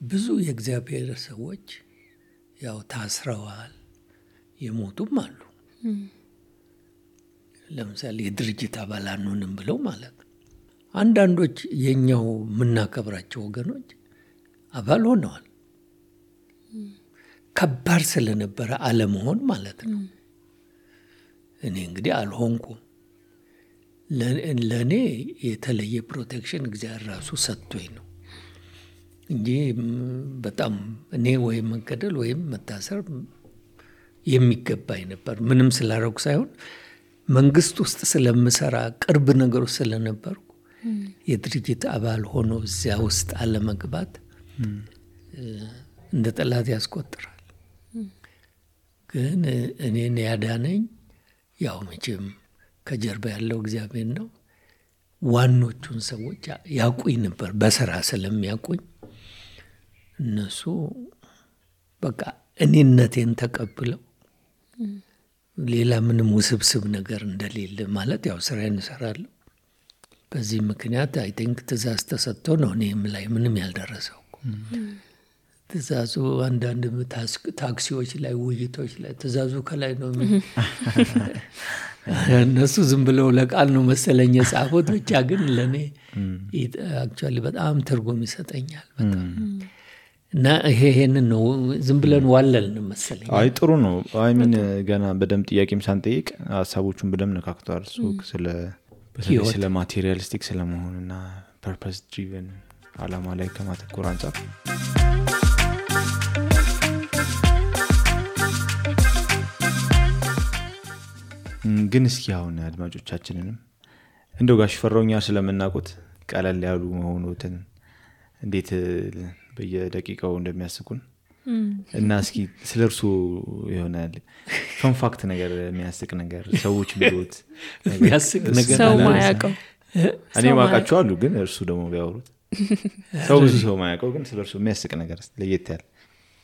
ብዙ የእግዚአብሔር ሰዎች ያው ታስረዋል፣ የሞቱም አሉ። ለምሳሌ የድርጅት አባል አንሆንም ብለው ማለት ነው። አንዳንዶች የኛው የምናከብራቸው ወገኖች አባል ሆነዋል። ከባድ ስለነበረ አለመሆን ማለት ነው። እኔ እንግዲህ አልሆንኩም። ለእኔ የተለየ ፕሮቴክሽን እግዚአብሔር ራሱ ሰጥቶኝ ነው እንጂ በጣም እኔ ወይም መገደል ወይም መታሰር የሚገባኝ ነበር። ምንም ስላረኩ ሳይሆን መንግስት ውስጥ ስለምሰራ ቅርብ ነገሮች ስለነበርኩ የድርጅት አባል ሆኖ እዚያ ውስጥ አለመግባት እንደ ጠላት ያስቆጥራል። ግን እኔን ያዳነኝ ያው መቼም ከጀርባ ያለው እግዚአብሔር ነው። ዋኖቹን ሰዎች ያውቁኝ ነበር በስራ ስለሚያውቁኝ እነሱ በቃ እኔነቴን ተቀብለው ሌላ ምንም ውስብስብ ነገር እንደሌለ ማለት ያው ስራዬን እሰራለሁ። በዚህ ምክንያት አይ ቲንክ ትእዛዝ ተሰጥቶ ነው እኔም ላይ ምንም ያልደረሰው። ትእዛዙ አንዳንድ ታክሲዎች ላይ ውይይቶች ላይ ትእዛዙ ከላይ ነው እነሱ ዝም ብለው ለቃል ነው መሰለኝ የጻፉት። ብቻ ግን ለእኔ አክቹዋሊ በጣም ትርጉም ይሰጠኛል በጣም። እና ይሄንን ነው ዝም ብለን ዋለልን መሰለኝ። አይ ጥሩ ነው። አይ ምን ገና በደም ጥያቄም ሳንጠይቅ ሀሳቦቹን በደም ነካክቷል። ስለ ማቴሪያሊስቲክ ስለመሆንና ፐርፐስ ድሪቨን ዓላማ ላይ ከማተኮር አንጻር ግን እስኪ አሁን አድማጮቻችንንም እንደው ጋሽ ፈራውኛ ስለምናውቁት ቀለል ያሉ መሆኑትን እንዴት በየደቂቃው እንደሚያስቁን እና እስኪ ስለርሱ ይሆናል ፈን ፋክት ነገር የሚያስቅ ነገር ሰዎች ቢሉት የሚያስቅ ነገር ሰው ማያውቀው እኔ ማውቃቸው አሉ፣ ግን እርሱ ደግሞ ቢያወሩት ሰው ብዙ ሰው ማያውቀው ግን ስለርሱ የሚያስቅ ነገር ለየት ያለ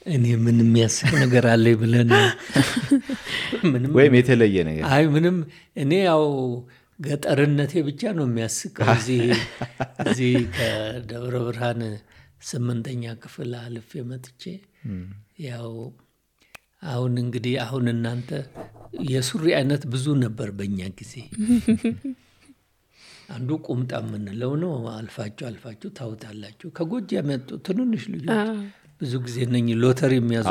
እኔ ምን የሚያስቅ ነገር አለ ብለን ምንም ወይም የተለየ ነገር አይ ምንም እኔ ያው ገጠርነቴ ብቻ ነው የሚያስቀው። እዚህ ከደብረ ብርሃን 8ኛ ክፍል አልፌ መጥቼ ያው አሁን እንግዲህ አሁን እናንተ የሱሪ አይነት ብዙ ነበር በእኛ ጊዜ። አንዱ ቁምጣ የምንለው ነው። አልፋችሁ ታውታላችሁ። ከጎጃም የመጡ ትንንሽ ልጆች ብዙ ጊዜ ነኝ ሎተሪ የሚያዙ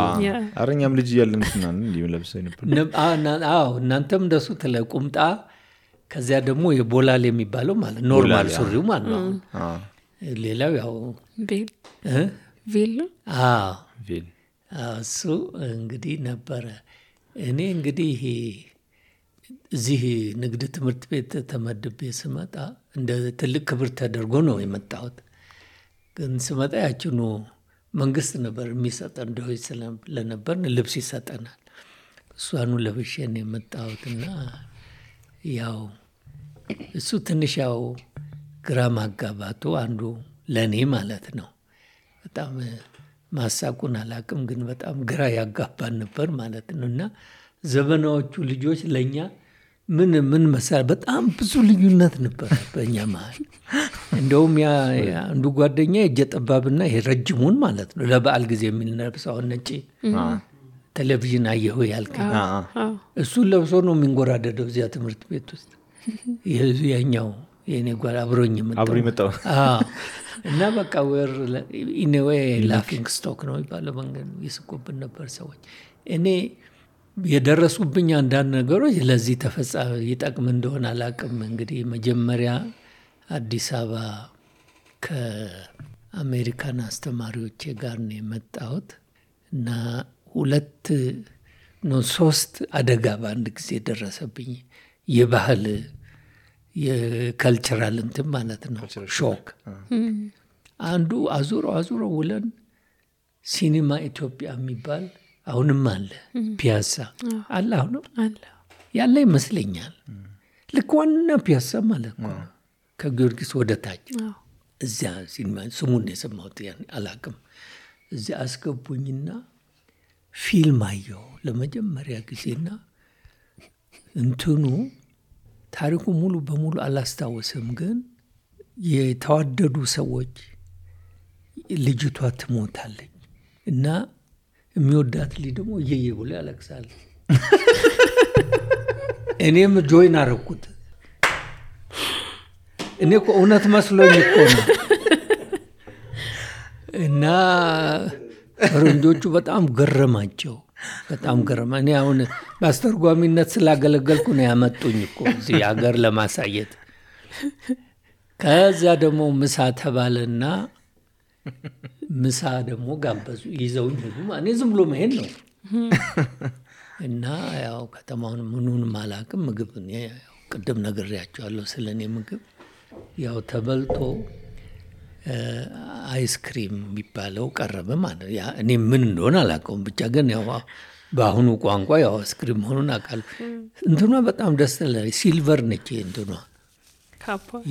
አረኛም ልጅ ያለን እንስናን እንዲሁ ለብሰው ነበር። አዎ እናንተም እንደሱ ቁምጣ፣ ከዚያ ደግሞ የቦላል የሚባለው ማለት ኖርማል ሱሪው ማለት ነው። ሌላው ያው ቬል ቬል እሱ እንግዲህ ነበረ። እኔ እንግዲህ እዚህ ንግድ ትምህርት ቤት ተመድቤ ስመጣ እንደ ትልቅ ክብር ተደርጎ ነው የመጣሁት። ግን ስመጣ ያችኑ መንግስት ነበር የሚሰጠን ደሆች ስለነበር ልብስ ይሰጠናል። እሷኑ ለብሼ ነው የመጣሁትና ያው እሱ ትንሽ ያው ግራ ማጋባቱ አንዱ ለኔ ማለት ነው። በጣም ማሳቁን አላቅም፣ ግን በጣም ግራ ያጋባን ነበር ማለት ነው። እና ዘመናዎቹ ልጆች ለኛ ምን መሳል በጣም ብዙ ልዩነት ነበር በእኛ መሀል። እንደውም ያ አንዱ ጓደኛ እጀ ጠባብና ረጅሙን ማለት ነው ለበዓል ጊዜ የሚለብሰው ነጭ ቴሌቪዥን አየሁ ያልከኝ እሱን ለብሶ ነው የሚንጎራደደው እዚያ ትምህርት ቤት ውስጥ። ያኛው የኔ ጓል አብሮኝ መጣው እና በቃ ወር ኢኔዌ ላፊንግ ስቶክ ነው ይባላል። መንገድ ይስቁብን ነበር ሰዎች። እኔ የደረሱብኝ አንዳንድ ነገሮች ለዚህ ተፈጻሚ ይጠቅም እንደሆነ አላቅም። እንግዲህ መጀመሪያ አዲስ አበባ ከአሜሪካን አስተማሪዎች ጋር ነው የመጣሁት እና 3 አደጋ በአንድ ጊዜ ደረሰብኝ። የባህል የካልቸራል እንትን ማለት ነው ሾክ። አንዱ አዙሮ ውለን ሲኒማ ኢትዮጵያ የሚባል አሁንም አለ ፒያሳ አለ አሁንም ያለ ይመስለኛል። ልክ ዋና ፒያሳ ማለት ነው ከጊዮርጊስ ወደ ታች እዚያ ሲኒማ ስሙን የሰማሁት አላቅም። እዚያ አስገቡኝና ፊልም አየሁ ለመጀመሪያ ጊዜና እንትኑ ታሪኩ ሙሉ በሙሉ አላስታወስም። ግን የተዋደዱ ሰዎች ልጅቷ ትሞታለች እና የሚወዳት ልጅ ደግሞ እየየ ብሎ ያለቅሳል። እኔም ጆይን አረኩት። እኔ እኮ እውነት መስሎኝ እኮ ነው። እና ፈረንጆቹ በጣም ገረማቸው። በጣም ገረማ። እኔ አሁን በአስተርጓሚነት ስላገለገልኩ ነው ያመጡኝ እኮ እዚህ ሀገር ለማሳየት። ከዛ ደግሞ ምሳ ተባለና ምሳ ደግሞ ጋበዙ ይዘውኝ ሄዱ። እኔ ዝም ብሎ መሄድ ነው እና ያው ከተማውን ምኑንም አላቅም። ምግብ ቅድም ነግሬያቸዋለሁ ስለኔ ምግብ ያው ተበልቶ አይስክሪም የሚባለው ቀረበ ማለት ያ እኔ ምን እንደሆነ አላውቀውም። ብቻ ግን ያው በአሁኑ ቋንቋ ያው አይስክሪም መሆኑን አውቃለሁ። እንትኗ በጣም ደስ ትላለች። ሲልቨር ነች እንትኗ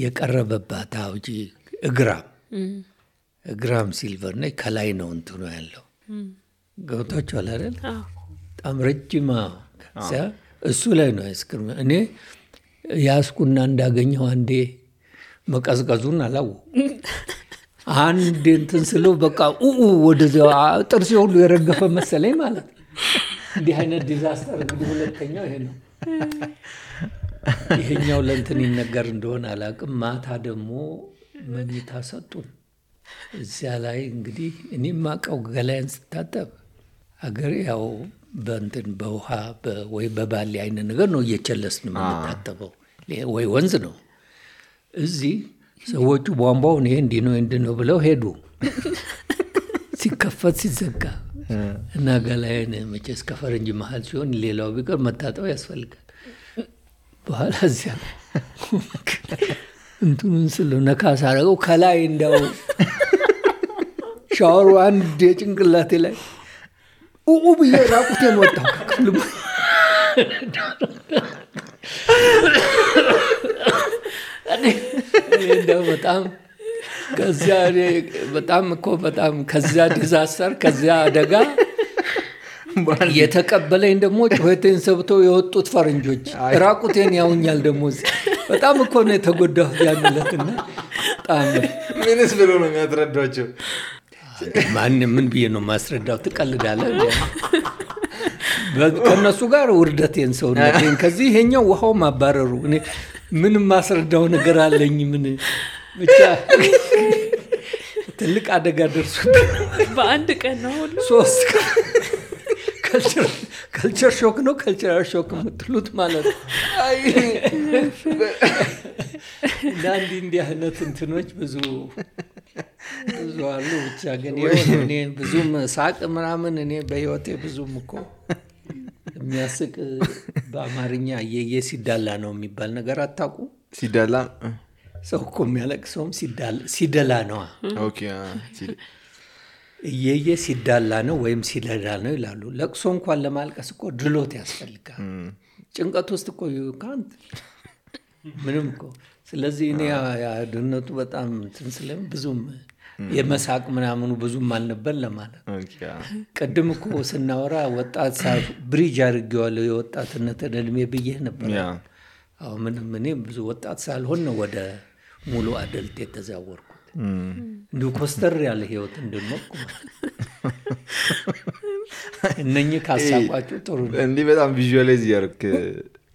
የቀረበባት አውጂ እግራም ሲልቨር ነች። ከላይ ነው እንትኗ ያለው ገብቷችኋል አይደል? በጣም ረጅም እሱ ላይ ነው አይስክሪም። እኔ ያስኩና እንዳገኘው አንዴ መቀዝቀዙን አላወኩም። አንድ እንትን ስለው በቃ ወደዚያ ጥርሴ ሁሉ የረገፈ መሰለኝ ማለት ነው። እንዲህ አይነት ዲዛስተር እንግዲህ ሁለተኛው ይሄ ነው። ይሄኛው ለእንትን ይነገር እንደሆነ አላቅም። ማታ ደግሞ መኝታ ሰጡን። እዚያ ላይ እንግዲህ እኔ ማቀው ገላዬን ስታጠብ አገሬ ያው በእንትን በውሃ ወይ በባሊ አይነት ነገር ነው እየቸለስን የምንታጠበው ወይ ወንዝ ነው። እዚህ ሰዎቹ ቧንቧውን ይሄ እንዲህ ነው ብለው ሄዱ። ሲከፈት ሲዘጋ እና ገላዬን መቼስ ከፈረንጅ መሀል ሲሆን ሌላው ቢቀር መታጠብ ያስፈልጋል። በኋላ እዚያ እንትኑን ስለው ነካ ሳረገው ከላይ እንደው ሻወሩ አንድ የጭንቅላቴ ላይ ብዬ ራቁቴን ወጣሁ ከክፍሉ። እንደው በጣም ከዚያ ዲዛስተር ከዚያ አደጋ የተቀበለኝ ደግሞ ጩኸቴን ሰብተው የወጡት ፈረንጆች ራቁቴን ያውኛል። ደግሞ በጣም እኮ ነው የተጎዳሁት ያንለትና በጣም ምንስ ብሎ ነው የሚያስረዳቸው? ምን ብዬ ነው ማስረዳው? ትቀልዳለህ? ከነሱ ጋር ውርደቴን ሰውነቴን ከዚህ ይሄኛው ውሃው ማባረሩ እኔ ምን ማስረዳው ነገር አለኝ? ምን ብቻ ትልቅ አደጋ ደርሶ በአንድ ቀን ነው ሁሉ 3 ካልቸር ሾክ ነው ካልቸራል ሾክ የምትሉት ማለት ነው። እንዲህ አይነት እንትኖች ብዙ አሉ። ብቻ ግን እኔ ብዙም ሳቅ ምናምን እኔ በህይወቴ ብዙም እኮ የሚያስቅ በአማርኛ የሲዳላ ነው የሚባል ነገር አታውቁ? ሲዳላ ሰው እኮ የሚያለቅሰውም ሲደላ ነው። ኦኬ እየየ ሲዳላ ነው ወይም ሲደላ ነው ይላሉ። ለቅሶ እንኳን ለማልቀስ እኮ ድሎት ያስፈልጋል። ጭንቀት ውስጥ እኮ ካንት ምንም እኮ። ስለዚህ እኔ ድህነቱ በጣም ትንስለም ብዙም የመሳቅ ምናምኑ ብዙም አልነበር ለማለት። ቅድም እኮ ስናወራ ወጣት ብሪጅ አድርጌዋለሁ የወጣትነት እድሜ ብዬ ነበር። አሁን ምንም እኔ ብዙ ወጣት ሳልሆን ነው ወደ ሙሉ አደልት የተዛወርኩት። እንዲሁ ኮስተር ያለ ህይወት እንድንሞቅ እነኚህ ካሳቋችሁ ጥሩ ነው። እንዲህ በጣም ቪዥዋላይዝ ያርክ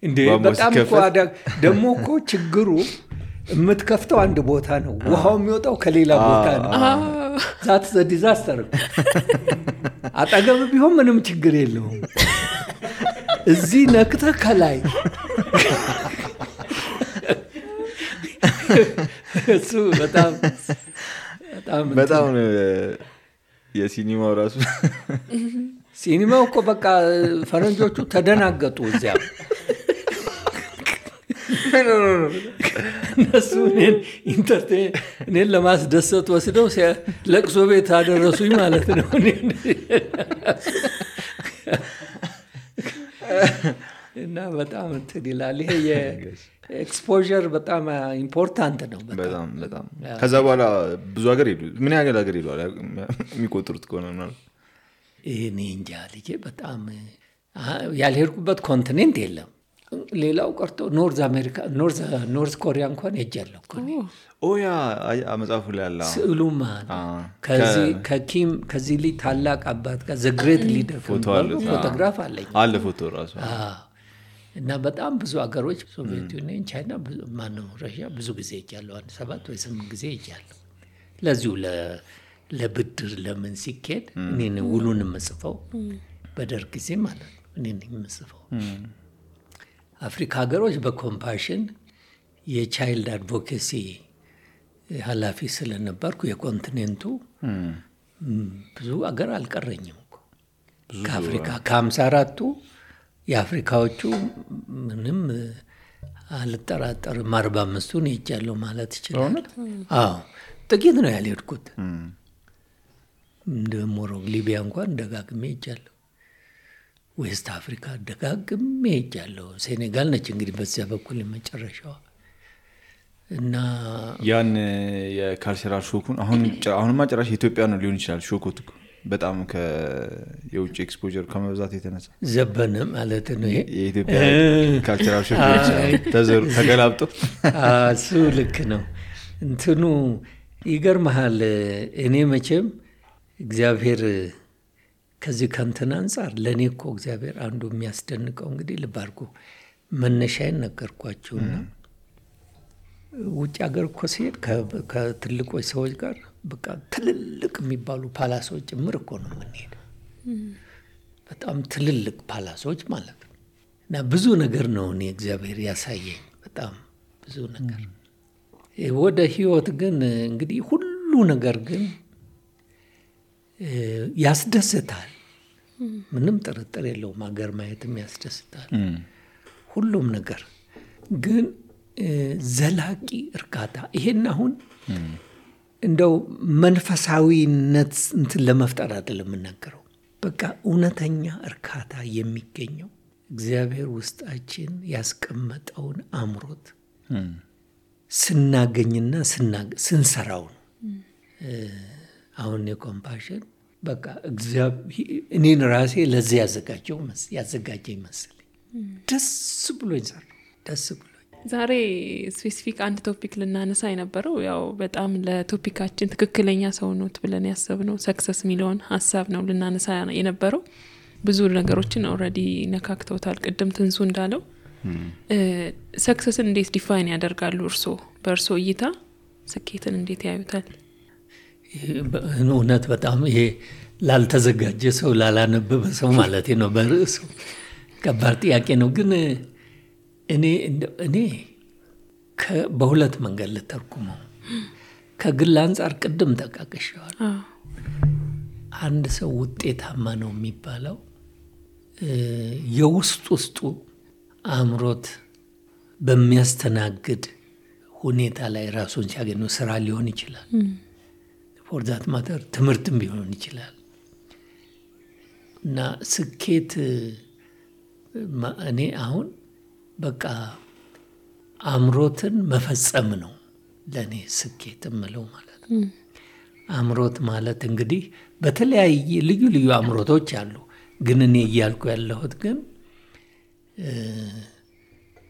እንዴ በጣም እኮ ደግሞ እኮ ችግሩ የምትከፍተው አንድ ቦታ ነው፣ ውሃው የሚወጣው ከሌላ ቦታ ነው። ዛት ዘ ዲዛስተር። አጠገብ ቢሆን ምንም ችግር የለውም። እዚህ ነክተህ ከላይ እሱ በጣም የሲኒማው ራሱ ሲኒማው እኮ በቃ ፈረንጆቹ ተደናገጡ። እዚያ እነሱ እኔን ለማስደሰት ወስደው ለቅሶ ቤት አደረሱኝ ማለት ነው። እና በጣም እንትን ይላል። ይሄ የኤክስፖዠር በጣም ኢምፖርታንት ነው። በጣም ከዛ በኋላ ብዙ ሀገር ሄዱ። ምን ያህል ሀገር ሄዱ የሚቆጥሩት ከሆነ ነው? እኔ እንጃ ልጄ በጣም ያልሄድኩበት ኮንቲኔንት የለም። ሌላው ቀርቶ ኖርዝ አሜሪካ ኖርዝ ኮሪያ እንኳን ሄጃለሁ እኮ እኔ። ያ መጽሐፉ ላይ አለ ስዕሉማ ከዚህ ላይ ታላቅ አባት ጋር ዘ ግሬት ሊደር ፎቶግራፍ አለ ፎቶ ራሱ። እና በጣም ብዙ አገሮች ሶቪየት ዩኒየን፣ ቻይና፣ ማነው ራሽያ ብዙ ጊዜ ሄጃለሁ። 7 ወይ 8 ጊዜ ሄጃለሁ። ለዚሁ ለብድር ለምን ሲኬድ እኔ ውሉን የምጽፈው በደርግ ጊዜ ማለት ነው። እኔ ነኝ የምጽፈው። አፍሪካ ሀገሮች በኮምፓሽን የቻይልድ አድቮኬሲ ኃላፊ ስለነበርኩ የኮንቲኔንቱ ብዙ አገር አልቀረኝም እኮ ከአፍሪካ ከ54ቱ የአፍሪካዎቹ ምንም አልጠራጠርም 45ቱን ሄጃለሁ ማለት ይችላል። አዎ ጥቂት ነው ያልሄድኩት። እንደ ሞሮክ ሊቢያ እንኳን ደጋግሜ ሄጃለሁ። ዌስት አፍሪካ ደጋግሜ ሄጃለሁ። ሴኔጋል ነች እንግዲህ በዚያ በኩል የመጨረሻዋ። እና ያን የካልቸራል ሾኩን አሁንማ ጭራሽ ኢትዮጵያ ነው ሊሆን ይችላል ሾኩት በጣም የውጭ ኤክስፖዠር ከመብዛት የተነሳ ዘበነ ማለት ነው። ይሄ የኢትዮጵያ ካልቸራል ሾክ ተገላብጦ እሱ ልክ ነው። እንትኑ ይገርምሃል። እኔ መቼም እግዚአብሔር ከዚህ ከንትን አንጻር ለእኔ እኮ እግዚአብሔር አንዱ የሚያስደንቀው እንግዲህ ልባርኩ መነሻዬን ነገርኳቸውና ውጭ ሀገር እኮ ሲሄድ ከትልቆች ሰዎች ጋር በቃ ትልልቅ የሚባሉ ፓላሶች ጭምር እኮ ነው የምንሄድ። በጣም ትልልቅ ፓላሶች ማለት ነው። እና ብዙ ነገር ነው እኔ እግዚአብሔር ያሳየኝ፣ በጣም ብዙ ነገር። ወደ ህይወት ግን እንግዲህ ሁሉ ነገር ግን ያስደስታል። ምንም ጥርጥር የለውም። ሀገር ማየትም ያስደስታል። ሁሉም ነገር ግን ዘላቂ እርካታ ይሄን አሁን እንደው መንፈሳዊነት እንትን ለመፍጠር አይደለም የምናገረው። በቃ እውነተኛ እርካታ የሚገኘው እግዚአብሔር ውስጣችን ያስቀመጠውን አምሮት ስናገኝና ስንሰራው ነው። አሁን የኮምፓሽን በቃ እኔን ራሴ ለዚህ ያዘጋጀኝ መሰለኝ። ደስ ብሎኝ ሰራው። ደስ ብሎኝ ዛሬ ስፔሲፊክ አንድ ቶፒክ ልናነሳ የነበረው ያው በጣም ለቶፒካችን ትክክለኛ ሰው ነው ብለን ያሰብነው ሰክሰስ የሚለውን ሀሳብ ነው ልናነሳ የነበረው። ብዙ ነገሮችን ኦልሬዲ ነካክተውታል። ቅድም ትንሱ እንዳለው ሰክሰስን እንዴት ዲፋይን ያደርጋሉ? በእርሶ እይታ ስኬትን እንዴት ያዩታል? እውነት በጣም ይሄ ላልተዘጋጀ ሰው ላላነበበ ሰው ማለት ነው በርዕሱ ከባድ ጥያቄ ነው። ግን እኔ በሁለት መንገድ ልተርጉመው። ከግል አንጻር ቅድም ተቃቅሻዋል። አንድ ሰው ውጤታማ ነው የሚባለው ውስጡ አምሮት በሚያስተናግድ ሁኔታ ላይ ራሱን ሲያገኙ ስራ ሊሆን ይችላል። ፎር ዛት ማተር ትምህርትም ሊሆን ይችላል። እና ስኬት እኔ አሁን በቃ አምሮትን መፈጸም ነው ለእኔ ስኬት የምለው ማለት ነው። አምሮት ማለት እንግዲህ በተለያየ ልዩ ልዩ አምሮቶች አሉ። ግን እኔ እያልኩ ያለሁት ግን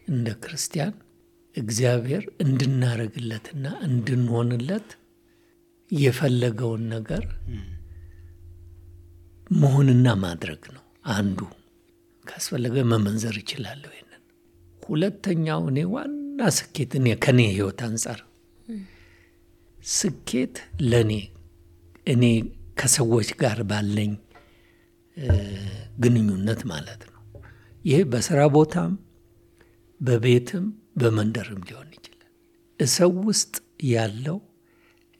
እንደ ክርስቲያን እግዚአብሔር እንድናረግለትና እንድንሆንለት የፈለገውን ነገር መሆንና ማድረግ ነው አንዱ። ካስፈለገ መመንዘር ይችላል ይሄንን። ሁለተኛው እኔ ዋና ስኬት ከኔ ህይወት አንፃር ስኬት ለኔ እኔ ከሰዎች ጋር ባለኝ ግንኙነት ማለት ነው። ይሄ በስራ ቦታም በቤትም በመንደርም ሊሆን ይችላል። ሰው ውስጥ ያለው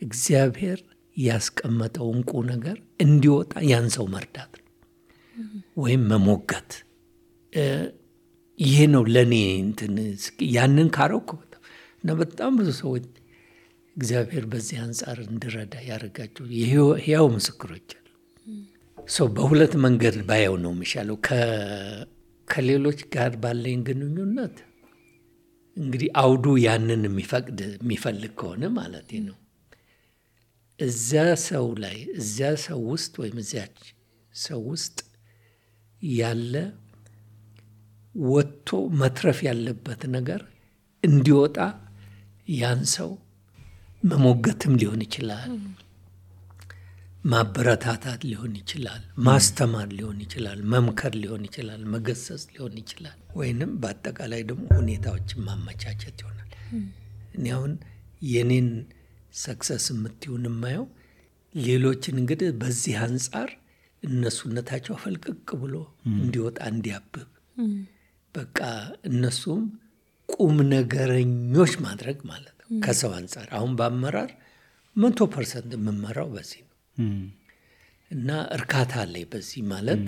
እግዚአብሔር ያስቀመጠው እንቁ ነገር እንዲወጣ ያን ሰው መርዳት ነው ወይም መሞገት። ይሄ ነው ለኔ ያንን ካረኩ እና በጣም ብዙ ሰዎች እግዚአብሔር በዚህ አንፃር እንድረዳ ያደርጋቸው ሕያው ምስክሮች አሉ። ሰው በሁለት መንገድ ባየው ነው የሚሻለው። ከሌሎች ጋር ባለኝ ግንኙነት እንግዲህ አውዱ ያንን የሚፈልግ ከሆነ ማለት ነው እዚያ ሰው ውስጥ ወይም እዚያች ሰው ውስጥ ያለ ወጥቶ መትረፍ ያለበት ነገር እንዲወጣ ያን ሰው መሞገትም ሊሆን ይችላል፣ ማበረታታት ሊሆን ይችላል፣ ማስተማር ሊሆን ይችላል፣ መምከር ሊሆን ይችላል፣ መገሰጽ ሊሆን ይችላል፣ ወይንም በአጠቃላይ ደግሞ ሁኔታዎችን ማመቻቸት ይሆናል። እኔ አሁን የኔን ሰክሰስ የምትሆን የማየው ሌሎችን እንግዲህ በዚህ አንጻር እነሱነታቸው ፈልቅቅ ብሎ እንዲወጣ እንዲያብብ በቃ እነሱም ቁም ነገረኞች ማድረግ ማለት ነው። ከሰው አንጻር አሁን በአመራር 100% የምመራው በዚህ ነው እና እርካታ አለኝ በዚህ ማለት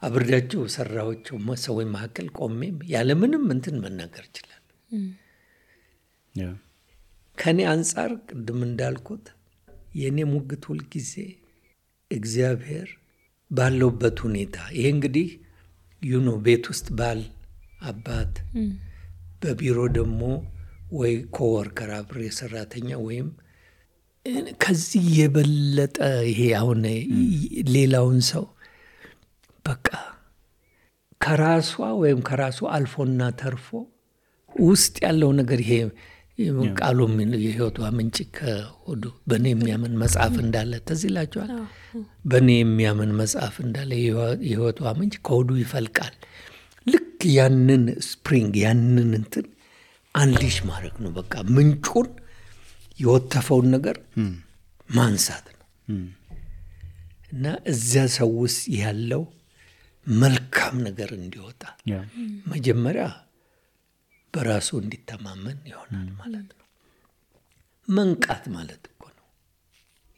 አብሬያቸው ሰራዎቸው ሰዎች መካከል ቆሜም ያለምንም መናገር ይችላል። ከኔ አንጻር ቅድም እንዳልኩት የኔ ሙግት ሁል ጊዜ እግዚአብሔር ባለውበት ሁኔታ ይሄ እንግዲህ ቤት ውስጥ ባል አባት በቢሮ ደግሞ ወይ ኮወርከር አብሬ ሰራተኛ ወይም ከዚህ የበለጠ ይሄ አሁን ሌላውን ሰው በቃ ከራሷ ወይም ከራሱ አልፎና ተርፎ ውስጥ ያለው ነገር ይሄ ቃሉ የህይወቷ ምንጭ ከሆዱ በእኔ የሚያምን መጽሐፍ እንዳለ ተዝላችኋል። በእኔ የሚያምን መጽሐፍ እንዳለ የህይወቷ ምንጭ ከሆዱ ይፈልቃል። ልክ ያንን ስፕሪንግ ያንን አንሊሽ ማድረግ ነው። በቃ ምንጩን የወተፈውን ነገር ማንሳት ነው እና እዚያ ሰው ውስጥ ያለው መልካም ነገር እንዲወጣ መጀመሪያ በራሱ እንዲተማመን ይሆናል ማለት ነው። መንቃት ማለት እኮ ነው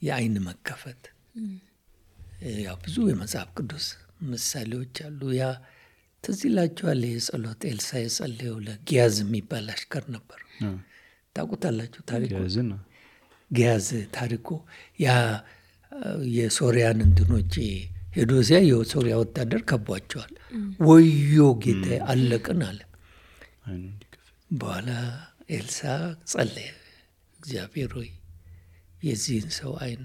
የአይን መከፈት። ያው ብዙ የመጽሐፍ ቅዱስ ምሳሌዎች አሉ። ያ ትዝ ይላችኋል የጸሎት ኤልሳ የጸለየው ለጊያዝ የሚባል አሽከር ነበር። ታውቁታላችሁ ታሪኩ? ጊያዝ ታሪኩ ያ የሶሪያን እንትኖች ሄዶ ሲያ የሶሪያ ወታደር ከቧቸዋል። ወዮ ጌታ አለቅን አለ። በኋላ ኤልሳ ጸለየ፣ እግዚአብሔር ሆይ የዚህን ሰው አይን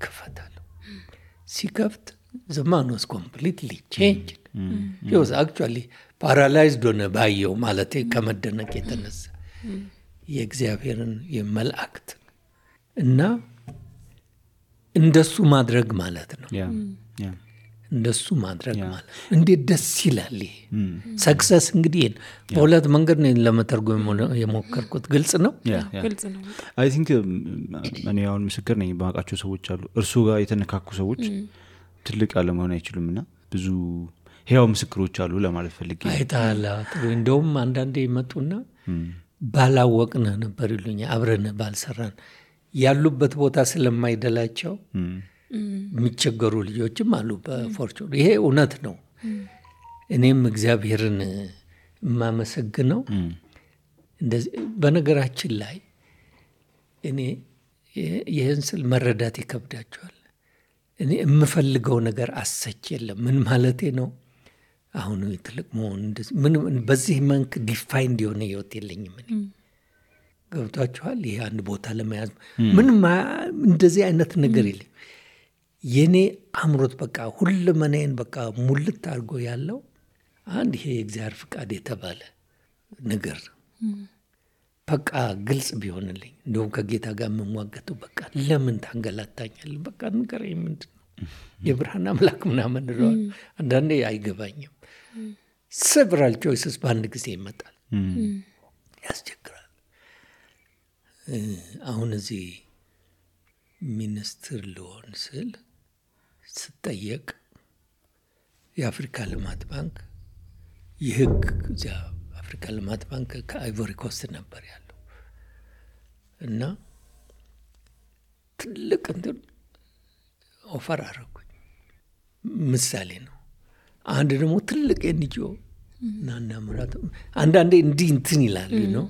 ክፈታለሁ። ሲከፍት the man was completely changed. He was actually paralyzed ሆነ ባየው ማለት ከመደነቅ የተነሳ የእግዚአብሔርን የመላእክት እና እንደሱ ማድረግ ማለት ነው። እንደሱ ማድረግ ማለት እንዴት ደስ ይላል። ሰክሰስ እንግዲህ በሁለት መንገድ ነው ለመተርጎም የሞከርኩት። ግልጽ ነው። አይ ቲንክ እኔ አሁን ምስክር ነኝ። ባቃቸው ሰዎች አሉ እርሱ ጋር የተነካኩ ሰዎች ትልቅ አለመሆን አይችሉምና ብዙ ሕያው ምስክሮች አሉ ለማለት ፈልጌ። አይታላ ጥሩ እንደውም አንዳንዴ ይመጡና ባላወቅነ ነበር ይሉኛል። አብረን ባልሰራን ያሉበት ቦታ ስለማይደላቸው የሚቸገሩ ልጆችም አሉ በፎርቹን። ይሄ እውነት ነው። እኔም እግዚአብሔርን የማመሰግነው እንደዚህ በነገራችን ላይ እኔ ይህን ስል መረዳት ይከብዳቸዋል። እኔ የምፈልገው ነገር አሰች የለም። ምን ማለቴ ነው? አሁን ትልቅ መሆን በዚህ መንክ ዲፋይንድ የሆነ ህይወት የለኝም። እኔ ገብቷችኋል? ይሄ አንድ ቦታ ለመያዝ ምንም እንደዚህ አይነት ነገር የለም። የኔ አምሮት በቃ ሁለመናዬን በቃ ሙልት አድርጎ ያለው አንድ ይሄ የእግዚአብሔር ፍቃድ የተባለ ነገር በቃ ግልጽ ቢሆንልኝ እንደውም ከጌታ ጋር የምሟገተው በቃ ለምን ታንገላታኛለህ? በቃ ንገረኝ፣ ምንድን ነው የብርሃን አምላክ ምናምን እለዋለሁ። አንዳንዴ አይገባኝም። several choices በአንድ ጊዜ ይመጣል፣ ያስቸግራል። አሁን እዚህ ሚኒስትር ልሆን ስል ስጠየቅ የአፍሪካ ልማት ባንክ የህግ እዚያ አፍሪካ ልማት ባንክ ከአይቮሪ ኮስት ነበር ያለው እና ትልቅ እንትን ኦፈር አደረጉኝ። ምሳሌ ነው። አንድ ደግሞ ትልቅ ኤንጂኦ ናና ምራት አንዳንዴ እንዲህ እንትን ይላል ነው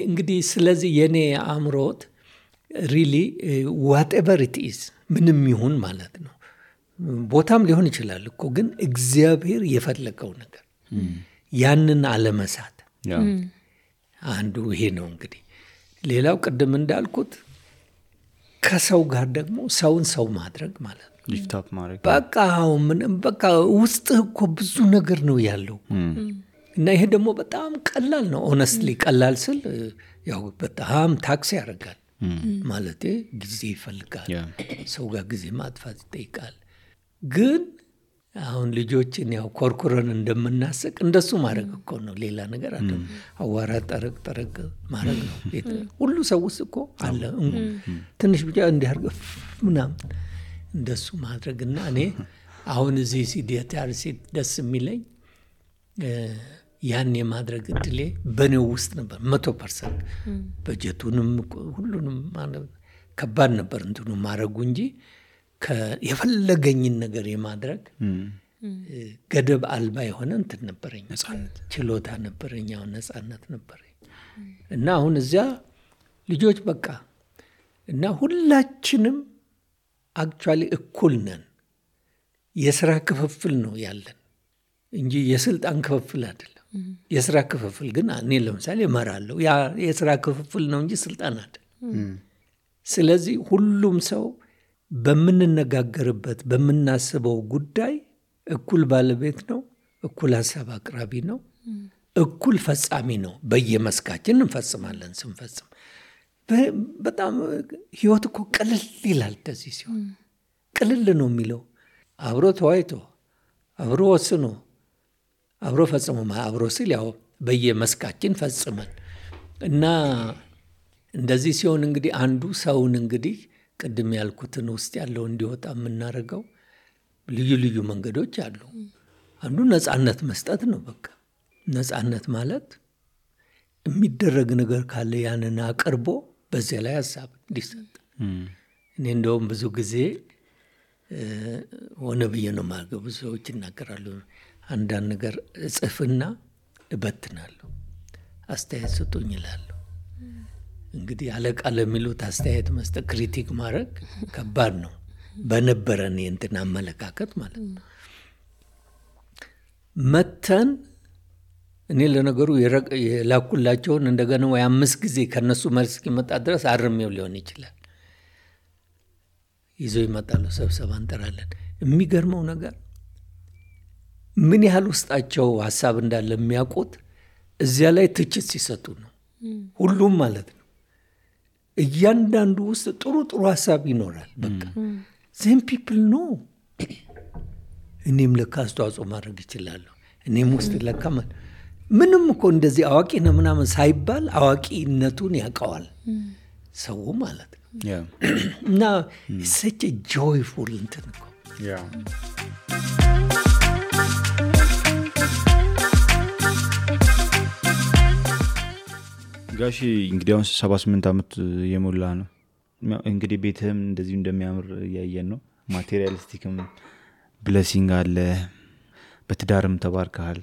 እንግዲህ። ስለዚህ የኔ አእምሮት ሪሊ ዋትኤቨር ኢት ኢዝ ምንም ይሁን ማለት ነው። ቦታም ሊሆን ይችላል እኮ ግን እግዚአብሔር የፈለገው ነገር ያንን አለመሳት አንዱ ይሄ ነው እንግዲህ። ሌላው ቅድም እንዳልኩት ከሰው ጋር ደግሞ ሰውን ሰው ማድረግ ማለት ነው። ሊፍት አፕ ማድረግ በቃ ውስጥ እኮ ብዙ ነገር ነው ያለው እና ይሄ ደግሞ በጣም ቀላል ነው። ኦነስትሊ ቀላል ስል ያው በጣም ታክሲ ያደርጋል ማለቴ ጊዜ ይፈልጋል። ሰው ጋር ጊዜ ማጥፋት ይጠይቃል። ግን አሁን ልጆችን ያው ኮርኩረን እንደምናስቅ እንደሱ ማድረግ እኮ ነው። ሌላ ነገር አይደለም። አዋራ ጠረቅ ማድረግ ነው። ሁሉ ሰው ውስጥ እኮ አለ። ትንሽ ብቻ እንዲያርግ ምናምን እንደሱ ማድረግና እኔ አሁን እዚህ ሲዲያታርሲ ደስ የሚለኝ ያን የማድረግ እድሌ በኔው ውስጥ ነበር 100%። በጀቱንም ሁሉንም ከባድ ነበር እንትኑ ማድረጉ እንጂ የፈለገኝን ነገር የማድረግ ገደብ አልባ የሆነ እንትን ነበረኝ፣ ችሎታ ነበረኝ፣ ነፃነት ነበረኝ እና አሁን እዚያ ልጆች በቃ እና ሁላችንም አክቹዋሊ እኩል ነን። የሥራ ክፍፍል ነው ያለን እንጂ የስልጣን ክፍፍል አይደለም። የሥራ ክፍፍል ግን እኔ ለምሳሌ እመራለሁ። ያ የሥራ ክፍፍል ነው እንጂ ስልጣን አይደለም። ስለዚህ ሁሉም ሰው በምንነጋገርበት በምናስበው ጉዳይ እኩል ባለቤት ነው፣ እኩል ሀሳብ አቅራቢ ነው፣ እኩል ፈጻሚ ነው። በየመስካችን እንፈጽማለን። ስንፈጽም በጣም ህይወት እኮ ቅልል ይላል። እንደዚህ ሲሆን ቅልል ነው የሚለው አብሮ ተዋይቶ አብሮ ወስኖ አብሮ ፈጽሞ አብሮ ሲል ያው በየመስካችን ፈጽመን እና እንደዚህ ሲሆን እንግዲህ አንዱ ሰውን እንግዲህ ቅድም ያልኩትን ውስጥ ያለው እንዲወጣ የምናደርገው ልዩ ልዩ መንገዶች አሉ። አንዱ ነፃነት መስጠት ነው። በቃ ነፃነት ማለት የሚደረግ ነገር ካለ ያንን አቅርቦ በዚያ ላይ ሀሳብ እንዲሰጥ። እኔ እንደውም ብዙ ጊዜ ሆነ ብዬ ነው የማደርገው። ብዙ ሰዎች ይናገራሉ። አንዳንድ ነገር እጽፍና እበትናለሁ፣ አስተያየት ስጡኝ እላለሁ። እንግዲህ አለቃ ለሚሉት አስተያየት መስጠት ክሪቲክ ማድረግ ከባድ ነው። በነበረን የእንትን አመለካከት ማለት ነው። መተን እኔ ለነገሩ የላኩላቸውን እንደገና ወይ 5 ጊዜ ከነሱ መልስ እስኪመጣ ድረስ አርሜው ሊሆን ይችላል። ይዘው ይመጣሉ። ስብሰባ እንጠራለን። የሚገርመው ነገር ምን ያህል ውስጣቸው ሀሳብ እንዳለ የሚያውቁት እዚያ ላይ ትችት ሲሰጡ ነው። ሁሉም ማለት ነው። እያንዳንዱ ውስጥ ጥሩ ጥሩ ሀሳብ ይኖራል። በቃ ዜም ፒፕል ነው። እኔም ለካ አስተዋጽኦ ማድረግ ይችላለሁ። እኔም ውስጥ ለካ ምንም እኮ እንደዚህ አዋቂ ነው ምናምን ሳይባል አዋቂነቱን ያውቀዋል ሰው ማለት ነው። እና such a joyful እንትን እኮ ጋሺ እንግዲህ አሁን 78 ዓመት የሞላ ነው። እንግዲህ ቤትህም እንደዚህ እንደሚያምር ያየን ነው። ማቴሪያሊስቲክም ብሌሲንግ አለ። በትዳርም ተባርከሃል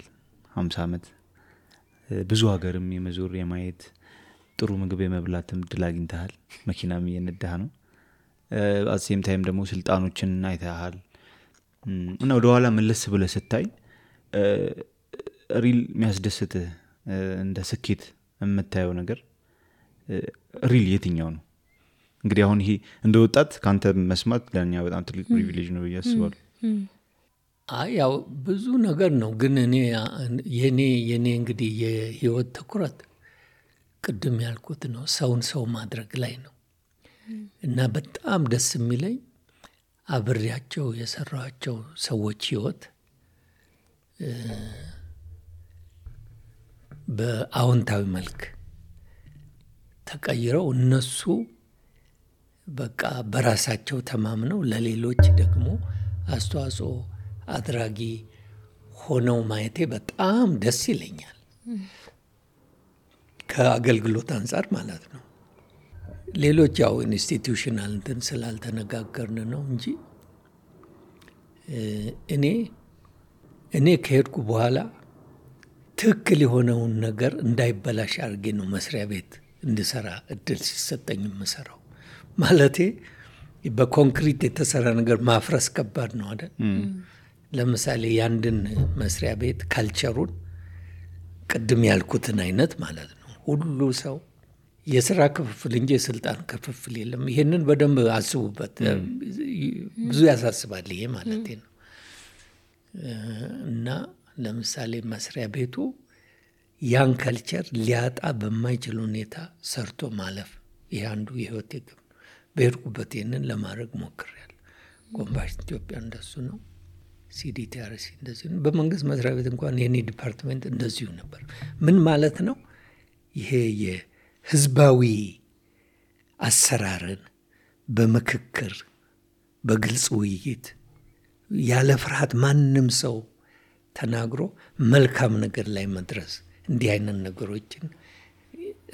50 ዓመት ብዙ ሀገርም የመዞር የማየት ጥሩ ምግብ የመብላትም እድል አግኝተሃል። መኪናም እየነዳህ ነው። አሴም ታይም ደግሞ ስልጣኖችን አይተሃል እና ወደ ኋላ መለስ ብለህ ስታይ ሪል የሚያስደስትህ እንደ ስኬት የምታየው ነገር ሪል የትኛው ነው? እንግዲህ አሁን ይሄ እንደ ወጣት ካንተ መስማት ለኛ በጣም ትልቅ ፕሪቪሌጅ ነው ያስባሉ። ያው ብዙ ነገር ነው ግን እኔ የኔ እንግዲህ የህይወት ትኩረት ቅድም ያልኩት ነው ሰው ማድረግ ላይ ነው እና በጣም ደስ የሚለኝ አብሬያቸው የሰራቸው ሰዎች ህይወት በአዎንታዊ መልክ ተቀይረው እነሱ በቃ በራሳቸው ተማምነው ለሌሎች ደግሞ አስተዋጽኦ አድራጊ ሆነው ማየቴ በጣም ደስ ይለኛል። ከአገልግሎት አንፃር ማለት ነው። ሌሎች ያው ኢንስቲትዩሽናል እንትን ስላልተነጋገርን ነው እንጂ እኔ ከሄድኩ በኋላ ትክክል የሆነውን ነገር እንዳይበላሽ አድርጌ ነው መስሪያ ቤት እንድሰራ እድል ሲሰጠኝ የምሰራው። ማለቴ በኮንክሪት የተሰራ ነገር ማፍረስ ከባድ ነው አይደል? ለምሳሌ ያንድን መስሪያ ቤት ካልቸሩን ቅድም ያልኩትን አይነት ማለት ነው ሁሉ ሰው የሥራ ክፍፍል እንጂ የስልጣን ክፍፍል የለም። ይሄንን በደንብ አስቡበት። ብዙ ያሳስባል ይሄ ማለት ነው። እና ለምሳሌ መስሪያ ቤቱ ያን ካልቸር ሊያጣ በማይችል ሁኔታ ሰርቶ ማለፍ ይሄ አንዱ የህይወት ግብ። በሄድኩበት ይሄንን ለማድረግ ሞክሬያለሁ። ኮምፓሽን ኢትዮጵያ እንደሱ ነው። ሲዲቲአርሲ እንደዚህ ነው። በመንግስት መስሪያ ቤት እንኳን የኔ ዲፓርትመንት እንደዚሁ ነበር። ምን ማለት ነው? ይሄ የህዝባዊ አሰራርን በምክክር በግልጽ ውይይት ያለ ፍርሃት ማንም ሰው ተናግሮ መልካም ነገር ላይ መድረስ እንዲህ አይነት ነገሮችን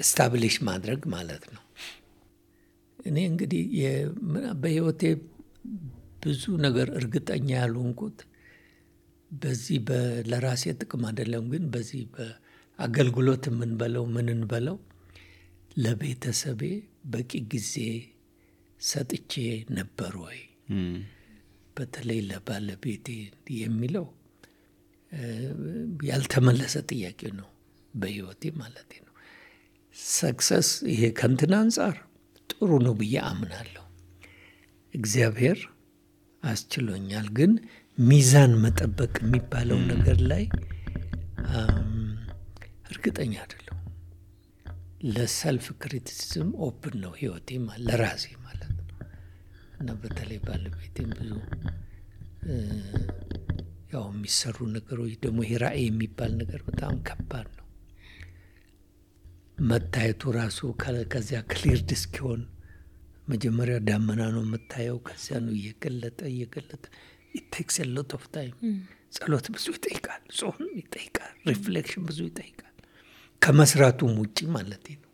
ስታብሊሽ ማድረግ ማለት ነው። እኔ እንግዲህ በህይወቴ ብዙ ነገር እርግጠኛ ያልሆንኩት በዚህ ለራሴ ጥቅም አይደለም ግን በዚህ በአገልግሎት ምንን በለው ለቤተሰቤ በቂ ጊዜ ሰጥቼ ነበር ወይ በተለይ ለባለቤቴ የሚለው ያልተመለሰ ጥያቄ ነው በህይወቴ ማለት ነው። ሰክሰስ ይሄ ከንትን አንፃር ጥሩ ነው ብዬ አምናለሁ። እግዚአብሔር አስችሎኛል። ግን ሚዛን መጠበቅ የሚባለው ነገር ላይ እርግጠኛ አይደለሁም። ለሰልፍ ክሪቲሲዝም ኦፕን ነው ህይወቴ ለራሴ ማለት ነው። እና በተለይ ባለቤቴም ብዙ ያው የሚሰሩ ነገሮች ደግሞ ይሄ ራዕይ የሚባል ነገር በጣም ከባድ ነው። መታየቱ ራሱ ከዚያ ክሊርድ እስኪሆን መጀመሪያ ዳመና ነው የምታየው። ከዚያ ነው እየገለጠ it takes a lot of time። ጸሎት ብዙ ይጠይቃል፣ ጾም ይጠይቃል፣ ሪፍሌክሽን ብዙ ይጠይቃል ከመስራቱም ውጪ ማለት ነው።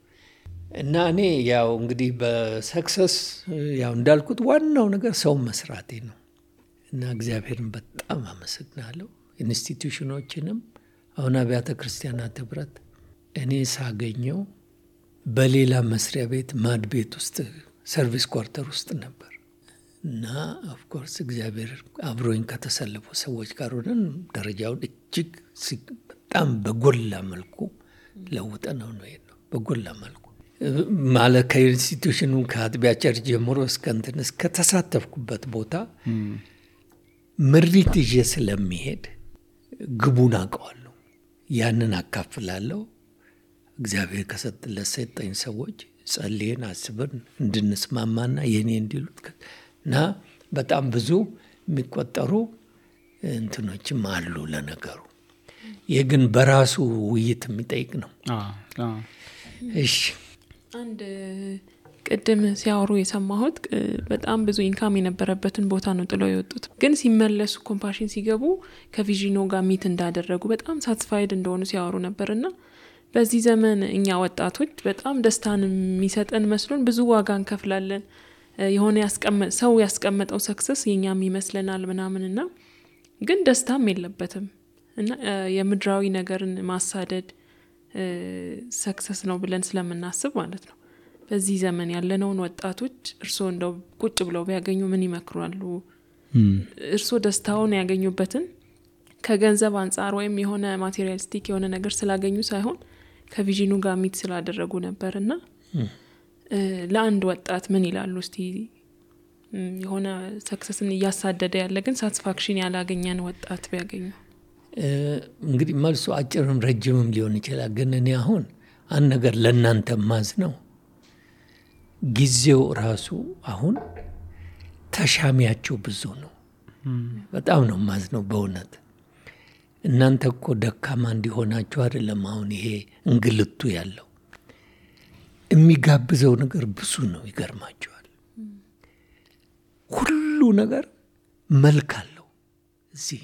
እና እኔ ያው እንግዲህ በሰክሰስ ያው እንዳልኩት ዋናው ነገር ሰው መስራቴ ነው። እና እግዚአብሔርን በጣም አመሰግናለሁ። ኢንስቲትዩሽኖችንም አሁን አብያተ ክርስቲያናት ህብረት እኔ ሳገኘው በሌላ መስሪያ ቤት ማድ ቤት ውስጥ ሰርቪስ ኳርተር ውስጥ ነበር እና ኦፍ ኮርስ እግዚአብሔር አብሮኝ ከተሰለፉ ሰዎች ጋር ሆነን ደረጃውን እጅግ በጣም በጎላ መልኩ ለውጠነው ነው የሄድነው። በጎላ መልኩ ማለት ከኢንስቲትዩሽኑ ከአጥቢያ ቸርች ጀምሮ እስከ ተሳተፍኩበት ቦታ ምሪት ይዤ ስለሚሄድ ግቡን አውቀዋለሁ። ያንን አካፍላለሁ። እግዚአብሔር ከሰጠኝ ሰዎች ጸልየን አስበን እንድንስማማና የኔ እንዲሉት እና በጣም ብዙ የሚቆጠሩ እንትኖችም አሉ ለነገሩ። ይህ ግን በራሱ ውይይት የሚጠይቅ ነው። እሺ አንድ ቅድም ሲያወሩ የሰማሁት በጣም ብዙ ኢንካም የነበረበትን ቦታ ነው ጥለው የወጡት። ግን ሲመለሱ ኮምፓሽን ሲገቡ ከቪዥኖ ጋር ሚት እንዳደረጉ በጣም ሳትስፋይድ እንደሆኑ ሲያወሩ ነበርና በዚህ ዘመን እኛ ወጣቶች በጣም ደስታን የሚሰጠን መስሎን ብዙ ዋጋ እንከፍላለን። የሆነ ሰው ያስቀመጠው ሰክሰስ የኛም ይመስለናል ምናምንና ግን ደስታም የለበትም እና የምድራዊ ነገርን ማሳደድ ሰክሰስ ነው ብለን ስለምናስብ ማለት ነው። በዚህ ዘመን ያለነውን ወጣቶች እርስዎ እንደው ቁጭ ብለው ቢያገኙ ምን ይመክራሉ? እርስዎ ደስታውን ያገኙበትን ከገንዘብ አንፃር ወይም የሆነ ማቴሪያሊስቲክ የሆነ ነገር ስላገኙ ሳይሆን ከቪዥኑ ጋር ሚት ስላደረጉ ነበርና ለአንድ ወጣት ምን ይላሉ እስቲ? የሆነ ሰክሰስን እያሳደደ ያለ ግን ሳቲስፋክሽን ያላገኘን ወጣት ቢያገኙ። እንግዲህ መልሱ አጭርም ረጅምም ሊሆን ይችላል። ግን እኔ አሁን አንድ ነገር ለእናንተ ማዝ ነው። ጊዜው ራሱ አሁን ተሻሚያቸው ብዙ ነው። በጣም ነው ማዝ ነው በእውነት። እናንተ እኮ ደካማ እንዲሆናችሁ አይደለም አሁን ይሄ እንግልቱ ያለው። የሚጋብዘው ነገር ብዙ ነው። ይገርማችኋል። ሁሉ ነገር መልክ አለው። እዚህ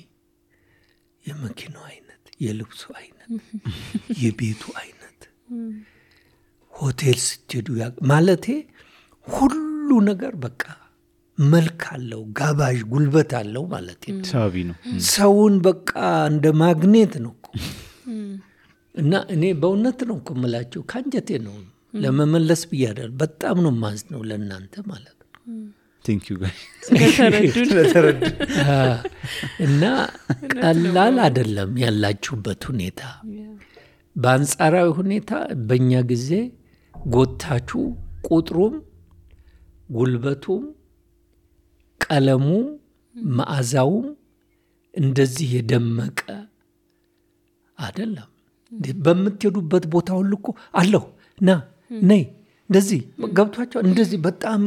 የመኪናው አይነት፣ የልብሱ አይነት፣ የቤቱ አይነት፣ ሆቴል ስትሄዱ ማለቴ ሁሉ ነገር በቃ መልክ አለው፣ ጋባዥ ጉልበት አለው ማለት ነው። ሳቢ ነው። ሰውን በቃ እንደ ማግኔት ነው እኮ። እና እኔ በእውነት ነው እኮ የምላችሁ ካንጀቴ ነው ለመመለስ ብያለሁ። በጣም ነው ማዝ ነው ለእናንተ ማለት ነው። ቴንክ ዩ ጋይ ስለተረዱ እና ቀላል አይደለም ያላችሁበት ሁኔታ። በአንጻራዊ ሁኔታ በእኛ ጊዜ ጎታችሁ ቁጥሩም ጉልበቱም ቀለሙ መዓዛውም እንደዚህ የደመቀ አይደለም። በምትሄዱበት ቦታ ሁሉ እኮ አለሁ ና ነይ እንደዚህ ገብቷቸው እንደዚህ በጣም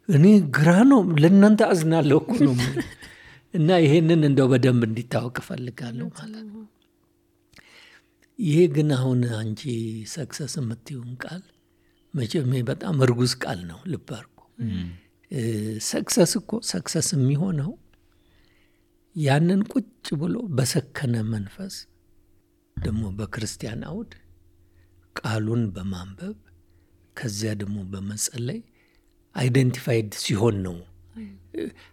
እኔ ግራ ነው ለእናንተ አዝናለሁ እኮ ነው። እና ይሄንን እንደው በደንብ እንዲታወቅ እፈልጋለሁ ማለት ነው። ይሄ ግን አሁን አንቺ ሰክሰስ የምትይውን ቃል መቼም በጣም እርጉዝ ቃል ነው። ልብ አድርጎ ሰክሰስ እኮ ሰክሰስ የሚሆነው ያንን ቁጭ ብሎ በሰከነ መንፈስ ደግሞ በክርስቲያን አውድ ቃሉን በማንበብ ከዚያ ደግሞ በመጸለይ አይደንቲፋይድ ሲሆን ነው።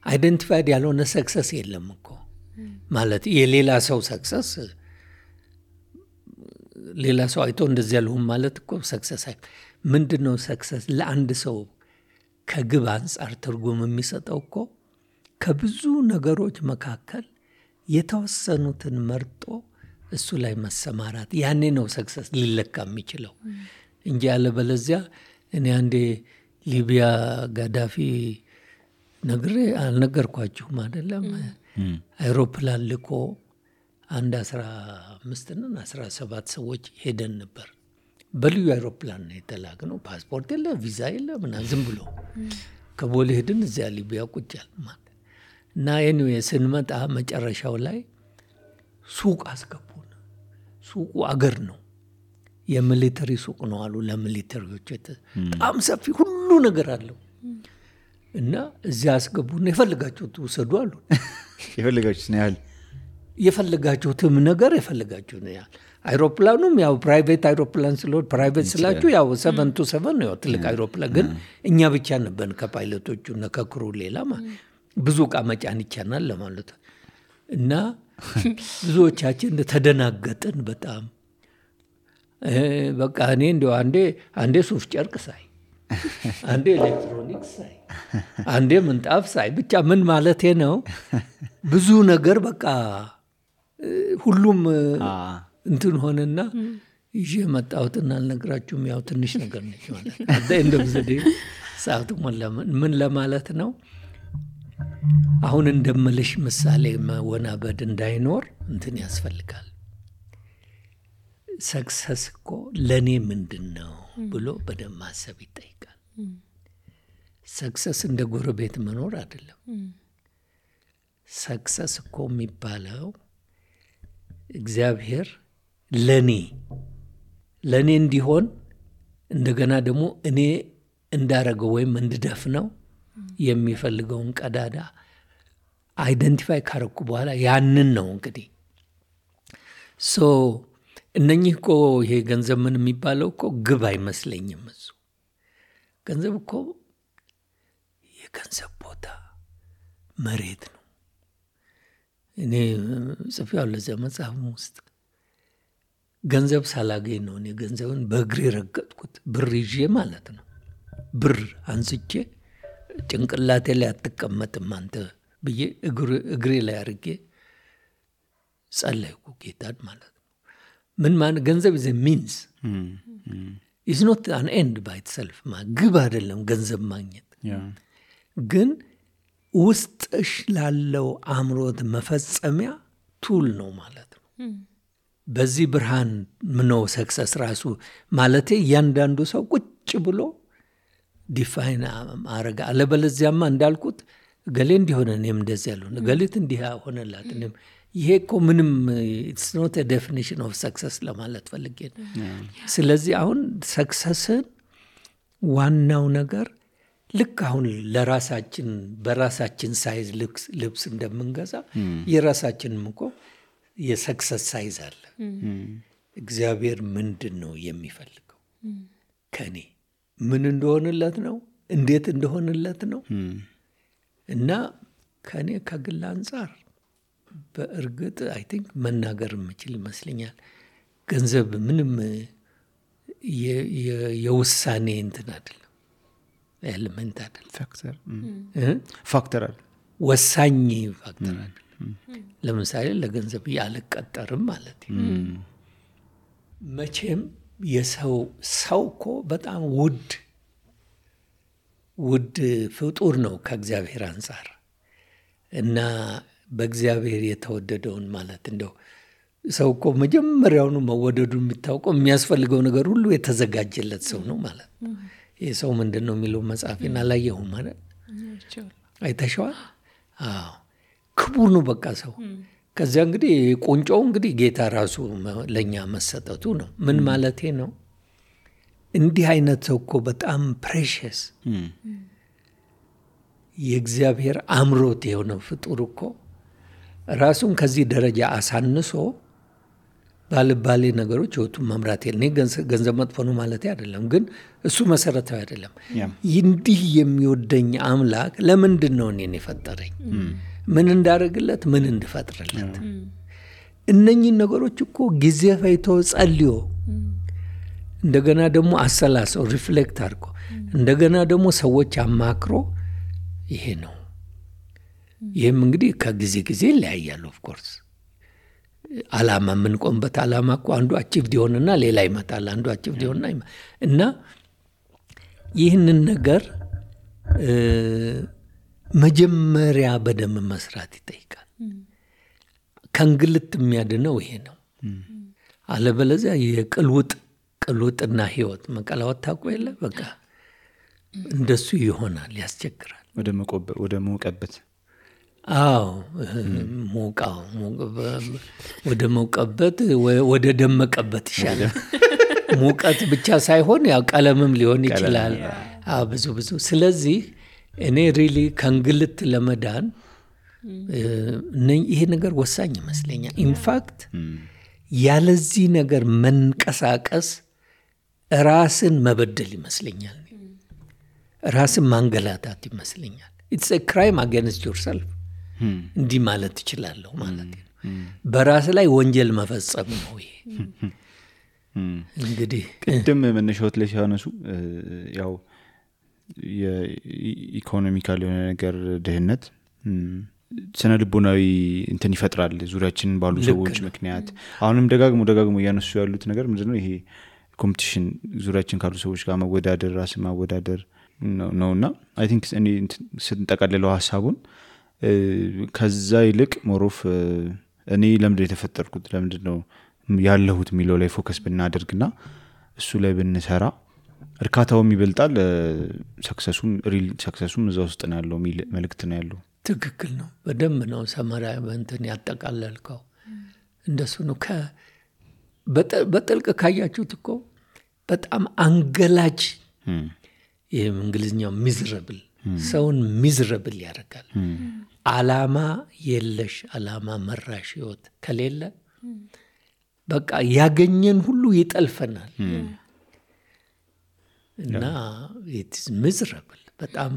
አይደንቲፋይድ ያልሆነ ሰክሰስ የለም እኮ ማለት የሌላ ሰው ሰክሰስ ሌላ ሰው አይቶ እንደዚህ ያልሁም ማለት እኮ ሰክሰስ ምንድነው? ሰክሰስ ለአንድ ሰው ከግብ አንጻር ትርጉም የሚሰጠው እኮ ከብዙ ነገሮች መካከል የተወሰኑትን መርጦ እሱ ላይ መሰማራት፣ ያኔ ነው ሰክሰስ ሊለካ የሚችለው እንጂ ያለበለዚያ እኔ አንዴ ሊቢያ ጋዳፊ ነግሬ አልነገርኳችሁም አይደለም? አይሮፕላን ልኮ አንድ 17 ሰዎች ሄደን ነበር። በልዩ አይሮፕላን ነው የተላክነው። ፓስፖርት የለ፣ ቪዛ የለ፣ ምናምን ዝም ብሎ ከቦሌ ሄድን። እዚያ ሊቢያ ቁጫል ማለት እና ኤኒዌይ ስንመጣ መጨረሻው ላይ ሱቅ አስገቡን። ሱቁ አገር ነው፣ የሚሊተሪ ሱቅ ነው አሉ። ለሚሊተሪዎች በጣም ሰፊ ሁሉ ነገር አለው። እና እዚያ አስገቡን። የፈልጋችሁት ውሰዱ አሉ። የፈልጋችሁት ያህል የፈልጋችሁትም ነገር የፈልጋችሁት ያህል። አይሮፕላኑም ያው ፕራይቬት አይሮፕላን ስለሆነ ፕራይቬት ስላችሁ ያው 727 ነው፣ ትልቅ አይሮፕላን። ግን እኛ ብቻ ነበር ከፓይለቶቹ እና ከክሩ ሌላ ብዙ ዕቃ መጫን ይቻላል ለማለት። እና ብዙዎቻችን ተደናገጥን በጣም። በቃ እኔ እንደው አንዴ ሱፍ ጨርቅ ሳይ፣ አንዴ ኤሌክትሮኒክስ ሳይ፣ አንዴ ምንጣፍ ሳይ፣ ብቻ ምን ማለቴ ነው ብዙ ነገር በቃ ሁሉም እንትን ሆነና ይዤ መጣሁትና አልነግራችሁም። ያው ትንሽ ነገር ነች ማለት ነው። እንደምዘዴ ሰዓቱ ምን ለማለት ነው? አሁን እንደምልሽ ምሳሌ መወናበድ እንዳይኖር እንትን ያስፈልጋል። ሰክሰስ እኮ ለእኔ ምንድን ነው ብሎ በደንብ ማሰብ ይጠይቃል። ሰክሰስ እንደ ጎረቤት መኖር አይደለም። ሰክሰስ እኮ የሚባለው እግዚአብሔር ለኔ እንዲሆን እንደገና ደግሞ እኔ እንዳረገው ወይም እንድደፍነው የሚፈልገውን ቀዳዳ አይደንቲፋይ ካረኩ በኋላ ያንን ነው እንግዲህ እነኚህ እኮ ይሄ ገንዘብ ምን የሚባለው እኮ ግብ አይመስለኝም። እሱ ገንዘብ እኮ የገንዘብ ቦታ መሬት ነው። እኔ ጽፌያለሁ ለዚያ መጽሐፍ ውስጥ ገንዘብ ሳላገኝ ነው እኔ ገንዘብን በእግሬ ረገጥኩት። ብር ይዤ ማለት ነው። ብር አንስቼ ጭንቅላቴ ላይ አትቀመጥም አንተ ብዬ እግሬ ላይ አድርጌ ጸለይኩ ጌታን ማለት ነው። ምን ማለት ገንዘብ is a means is not an end by itself ግብ አይደለም ገንዘብ ማግኘት ግን ውስጥሽ ላለው አእምሮት መፈጸሚያ ቱል ነው ማለት ነው። በዚህ ብርሃን ምነው ሰክሰስ ራሱ ማለቴ እያንዳንዱ ሰው ቁጭ ብሎ ዲፋይን አረጋ አለበለዚያማ እንዳልኩት ገሌ እንዲሆነ እኔም እንደዚህ ያለው ገሌት እንዲህ ሆነላት እኔም ይሄ እኮ ምንም it's not a definition of success ለማለት ፈልጌ ነው። ስለዚህ አሁን ሰክሰስን ዋናው ነገር ልክ አሁን ለራሳችን በራሳችን ሳይዝ ልብስ እንደምንገዛ የራሳችንም እኮ የሰክሰስ ሳይዝ አለ። እግዚአብሔር ምንድን ነው የሚፈልገው ከኔ ምን እንደሆነለት ነው እንዴት እንደሆነለት ነው እና ከኔ ከግል አንፃር በእርግጥ አይ ቲንክ መናገር የምችል ይመስለኛል። ገንዘብ ምንም የውሳኔ እንትን አይደለም ኤሌመንት አይደለም ፋክተር አይደለም ወሳኝ ፋክተር አይደለም። ለምሳሌ ለገንዘብ ያልቀጠርም ማለት መቼም የሰው እኮ በጣም ውድ ፍጡር ነው ከእግዚአብሔር አንፃር እና በእግዚአብሔር የተወደደውን ማለት እንደው ሰው እኮ መጀመሪያውኑ መወደዱን የሚታወቀው የሚያስፈልገው ነገር ሁሉ የተዘጋጀለት ሰው ነው ማለት ነው። ይህ ሰው ምንድን ነው የሚለው መጽሐፌን አላየሁም ማለት አይተሸዋል? አዎ ክቡር ነው በቃ ሰው። ከዚያ እንግዲህ ቁንጮው እንግዲህ ጌታ ራሱ ለእኛ መሰጠቱ ነው። ምን ማለቴ ነው? እንዲህ አይነት ሰው እኮ በጣም ፕሬሽስ የእግዚአብሔር አምሮት የሆነው ፍጡር እኮ ራሱን ከዚህ ደረጃ አሳንሶ ባልባሌ ነገሮች ህይወቱን መምራት እኔ ገንዘብ መጥፎ ነው ማለት አይደለም፣ ግን እሱ መሰረታዊ አይደለም። እንዲህ የሚወደኝ አምላክ ለምንድን ነው እኔን የፈጠረኝ? ምን እንዳደርግለት ምን እንድፈጥርለት? እነኚህ ነገሮች እኮ ጊዜ ፈይቶ ጸልዮ እንደገና ደግሞ አሰላሰው ሪፍሌክት አድርጎ እንደገና ደግሞ ሰዎች አማክሮ ይሄ ነው። ይህም እንግዲህ ከጊዜ ጊዜ ይለያያል። ኦፍ ኮርስ አላማ የምንቆምበት አላማ እኮ አንዱ አቺቭድ ይሆንና ሌላ ይመጣል፣ አንዱ አቺቭድ ይሆንና እና ይህንን ነገር መጀመሪያ በደንብ መስራት ይጠይቃል። ከእንግልት የሚያድነው ይሄ ነው። አለበለዚያ የቅልውጥና ህይወት መቀላወጥ ታውቁ የለ በቃ እንደሱ ይሆናል፣ ያስቸግራል። ወደ መውቀበት አዎ ሞቃው ወደ መውቀበት ወደ ደመቀበት ይሻላል። ሙቀት ብቻ ሳይሆን ያው ቀለምም ሊሆን ይችላል። ብዙ ስለዚህ እኔ ሪሊ ከእንግልት ለመዳን ይሄ ነገር ወሳኝ ይመስለኛል። ኢንፋክት ያለዚህ ነገር መንቀሳቀስ ራስን መበደል ይመስለኛል፣ ራስን ማንገላታት ይመስለኛል። it's a crime against yourself እንዲህ ማለት ትችላለሁ ማለት ነው። በራስ ላይ ወንጀል መፈጸም ነው ይሄ። እንግዲህ ቅድም መነሻዎት ላይ ሲያነሱ ያው የኢኮኖሚካል የሆነ ነገር ድህነት ስነ ልቦናዊ እንትን ይፈጥራል ዙሪያችንን ባሉ ሰዎች ምክንያት። አሁንም ደጋግሞ ያነሱ ያሉት ነገር ምንድነው? ይሄ ኮምፒቲሽን ዙሪያችን ካሉ ሰዎች ጋር መወዳደር፣ ራስ ማወዳደር ነውና አይ ቲንክ እኔ ስንጠቀልለው ሐሳቡን ከዛ ይልቅ ሞሮፍ እኔ ለምንድነው የተፈጠርኩት ለምንድነው ያለሁት የሚለው ላይ ፎከስ ብናደርግና እሱ ላይ ብንሰራ እርካታውም ይበልጣል፣ ሰክሰሱም እዛ ውስጥ ነው ያለው የሚል መልእክት ነው ያለው። ትክክል ነው። በደንብ ነው ሰመራ እንትን ያጠቃለልከው። እንደሱ ነው። በጥልቅ ካያችሁት እኮ በጣም አንገላጅ ይሄም እንግሊዝኛው ሚዝረብል ሰውን ሚዝረብል ያደርጋል። አላማ የለሽ አላማ መራሽ ህይወት ከሌለ በቃ ያገኘን ሁሉ ይጠልፈናል እና it's miserable በጣም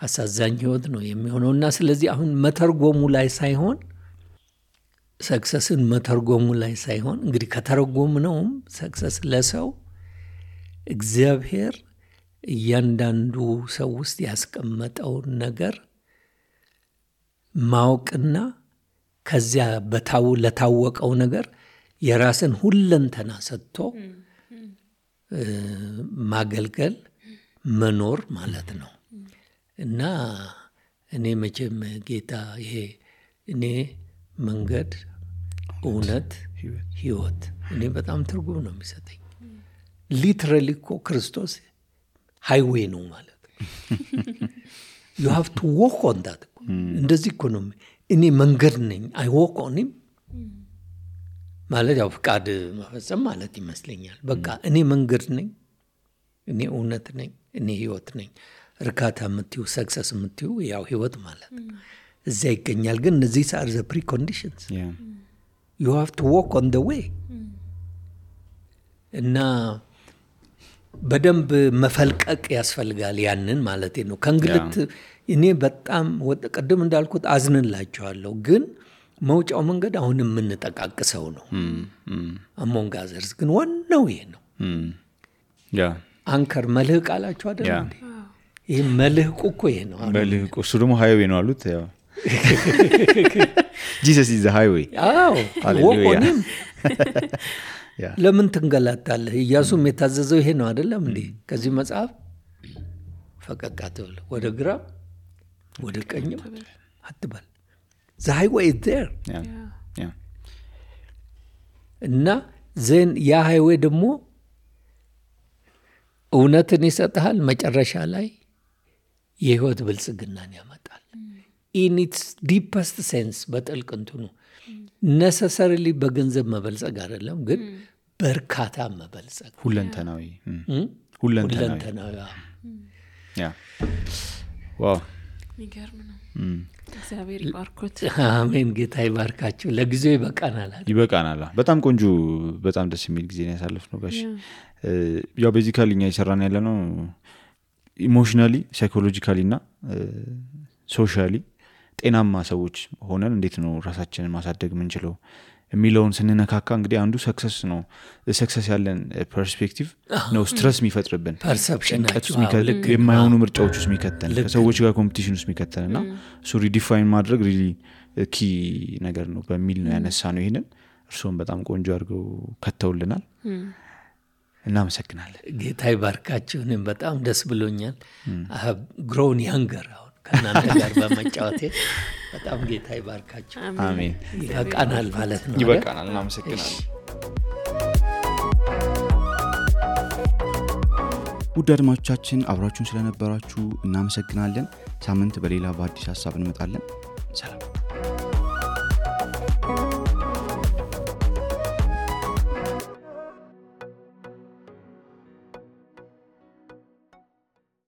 አሳዛኝ ህይወት ነው የሚሆነውና ስለዚህ አሁን መተርጎሙ ላይ ሳይሆን ሰክሰስን መተርጎሙ ላይ ሳይሆን እንግዲህ ከተረጎምነውም ሰክሰስ ለሰው እግዚአብሔር እያንዳንዱ ሰው ውስጥ ያስቀመጠውን ነገር ማወቅና ከዚያ ለታወቀው ነገር የራስን ሁለንተና ሰጥቶ ማገልገል መኖር ማለት ነው። እና እኔ መቼም ጌታ ይሄ እኔ መንገድ እውነት ህይወት እኔ በጣም ትርጉም ነው የሚሰጠኝ። ሊትራሊ እኮ ክርስቶስ ሃይዌይ ነው ማለት you have to walk on that እንደዚህ እኮ ነው እኔ መንገድ ነኝ I walk on him ማለት ያው ፍቃድ መፈጸም ማለት ይመስለኛል። በቃ እኔ መንገድ ነኝ፣ እኔ እውነት ነኝ፣ እኔ ህይወት ነኝ። እርካታ የምትዩ ሰክሰስ የምትዩ ያው ህይወት ማለት እዚያ ይገኛል። ግን these are the preconditions. You have to walk on the way. እና በደንብ መፈልቀቅ ያስፈልጋል ያንን ማለት ነው። ከእንግልት እኔ በጣም ቀደም እንዳልኩት አዝንላቸዋለሁ። ግን መውጫው መንገድ አሁን የምንጠቃቅሰው ነው። among others ግን ዋናው ይሄ ነው። አንከር መልህቅ አላችሁ አይደል እንዴ? ይሄ መልህቁ እኮ ይሄ ነው። መልህቁ እሱ ደግሞ ሃይዌይ ነው አሉት። ያው Jesus is the highway. አዎ ወቆንም ለምን ትንገላታለህ? ኢያሱም የታዘዘው ይሄ ነው አይደለም እንዴ? ከዚህ መጽሐፍ ፈቀቅ አትበል፣ ወደ ግራ ወደ ቀኝ አትበል። the highway is there. እና ዘን ያ ሃይዌይ ደግሞ እውነትን ይሰጣል፣ መጨረሻ ላይ የህይወት ብልጽግናን ያመጣል። in its deepest sense በጥልቅ እንትኑ necessarily በገንዘብ መበልጸግ አይደለም፣ ግን በርካታ መበልጸግ ሁለንተናዊ ዋው ይገርም ነው። እግዚአብሔር ይባርኮት። አሜን። ጌታ ይባርካችሁ። ለጊዜው ይበቃናል። በጣም ቆንጆ በጣም ደስ የሚል ጊዜ ነው ያሳለፍነው ጋሽ። ያው ቤዚካሊ እኛ እየሰራን ያለነው ኢሞሽናሊ ሳይኮሎጂካሊ እና ሶሻሊ ጤናማ ሰዎች ሆነን እንዴት ነው ራሳችንን ማሳደግ የምንችለው የሚለውን ስንነካካ እንግዲህ አንዱ ሰክሰስ ነው። ሰክሰስ ያለን ፐርስፔክቲቭ ነው ስትረስ የሚፈጥርብን፣ ፐርሰፕሽናችን የማይሆኑ ምርጫዎች ውስጥ የሚከተን፣ ከሰዎች ጋር ኮምፒቲሽን ውስጥ የሚከተንና እሱ ሪዲፋይን ማድረግ ሪሊ ኪ ነገር ነው በሚል ነው ያነሳ ነው። ይሄንን እርሶም በጣም ቆንጆ አድርገው ከተውልናል። እናመሰግናለን። ጌታ ይባርካችሁ። እኔም በጣም ደስ ብሎኛል። I have grown younger ከናንተ ጋር በመጫወቴ በጣም ጌታ ይባርካችሁ። አሜን። ይበቃናል ማለት ነው። ይበቃናል። እናመሰግናለን። ውድ አድማጮቻችን አብራችሁን ስለነበራችሁ እናመሰግናለን። ሳምንት በሌላ በአዲስ ሐሳብ እንመጣለን። ሰላም።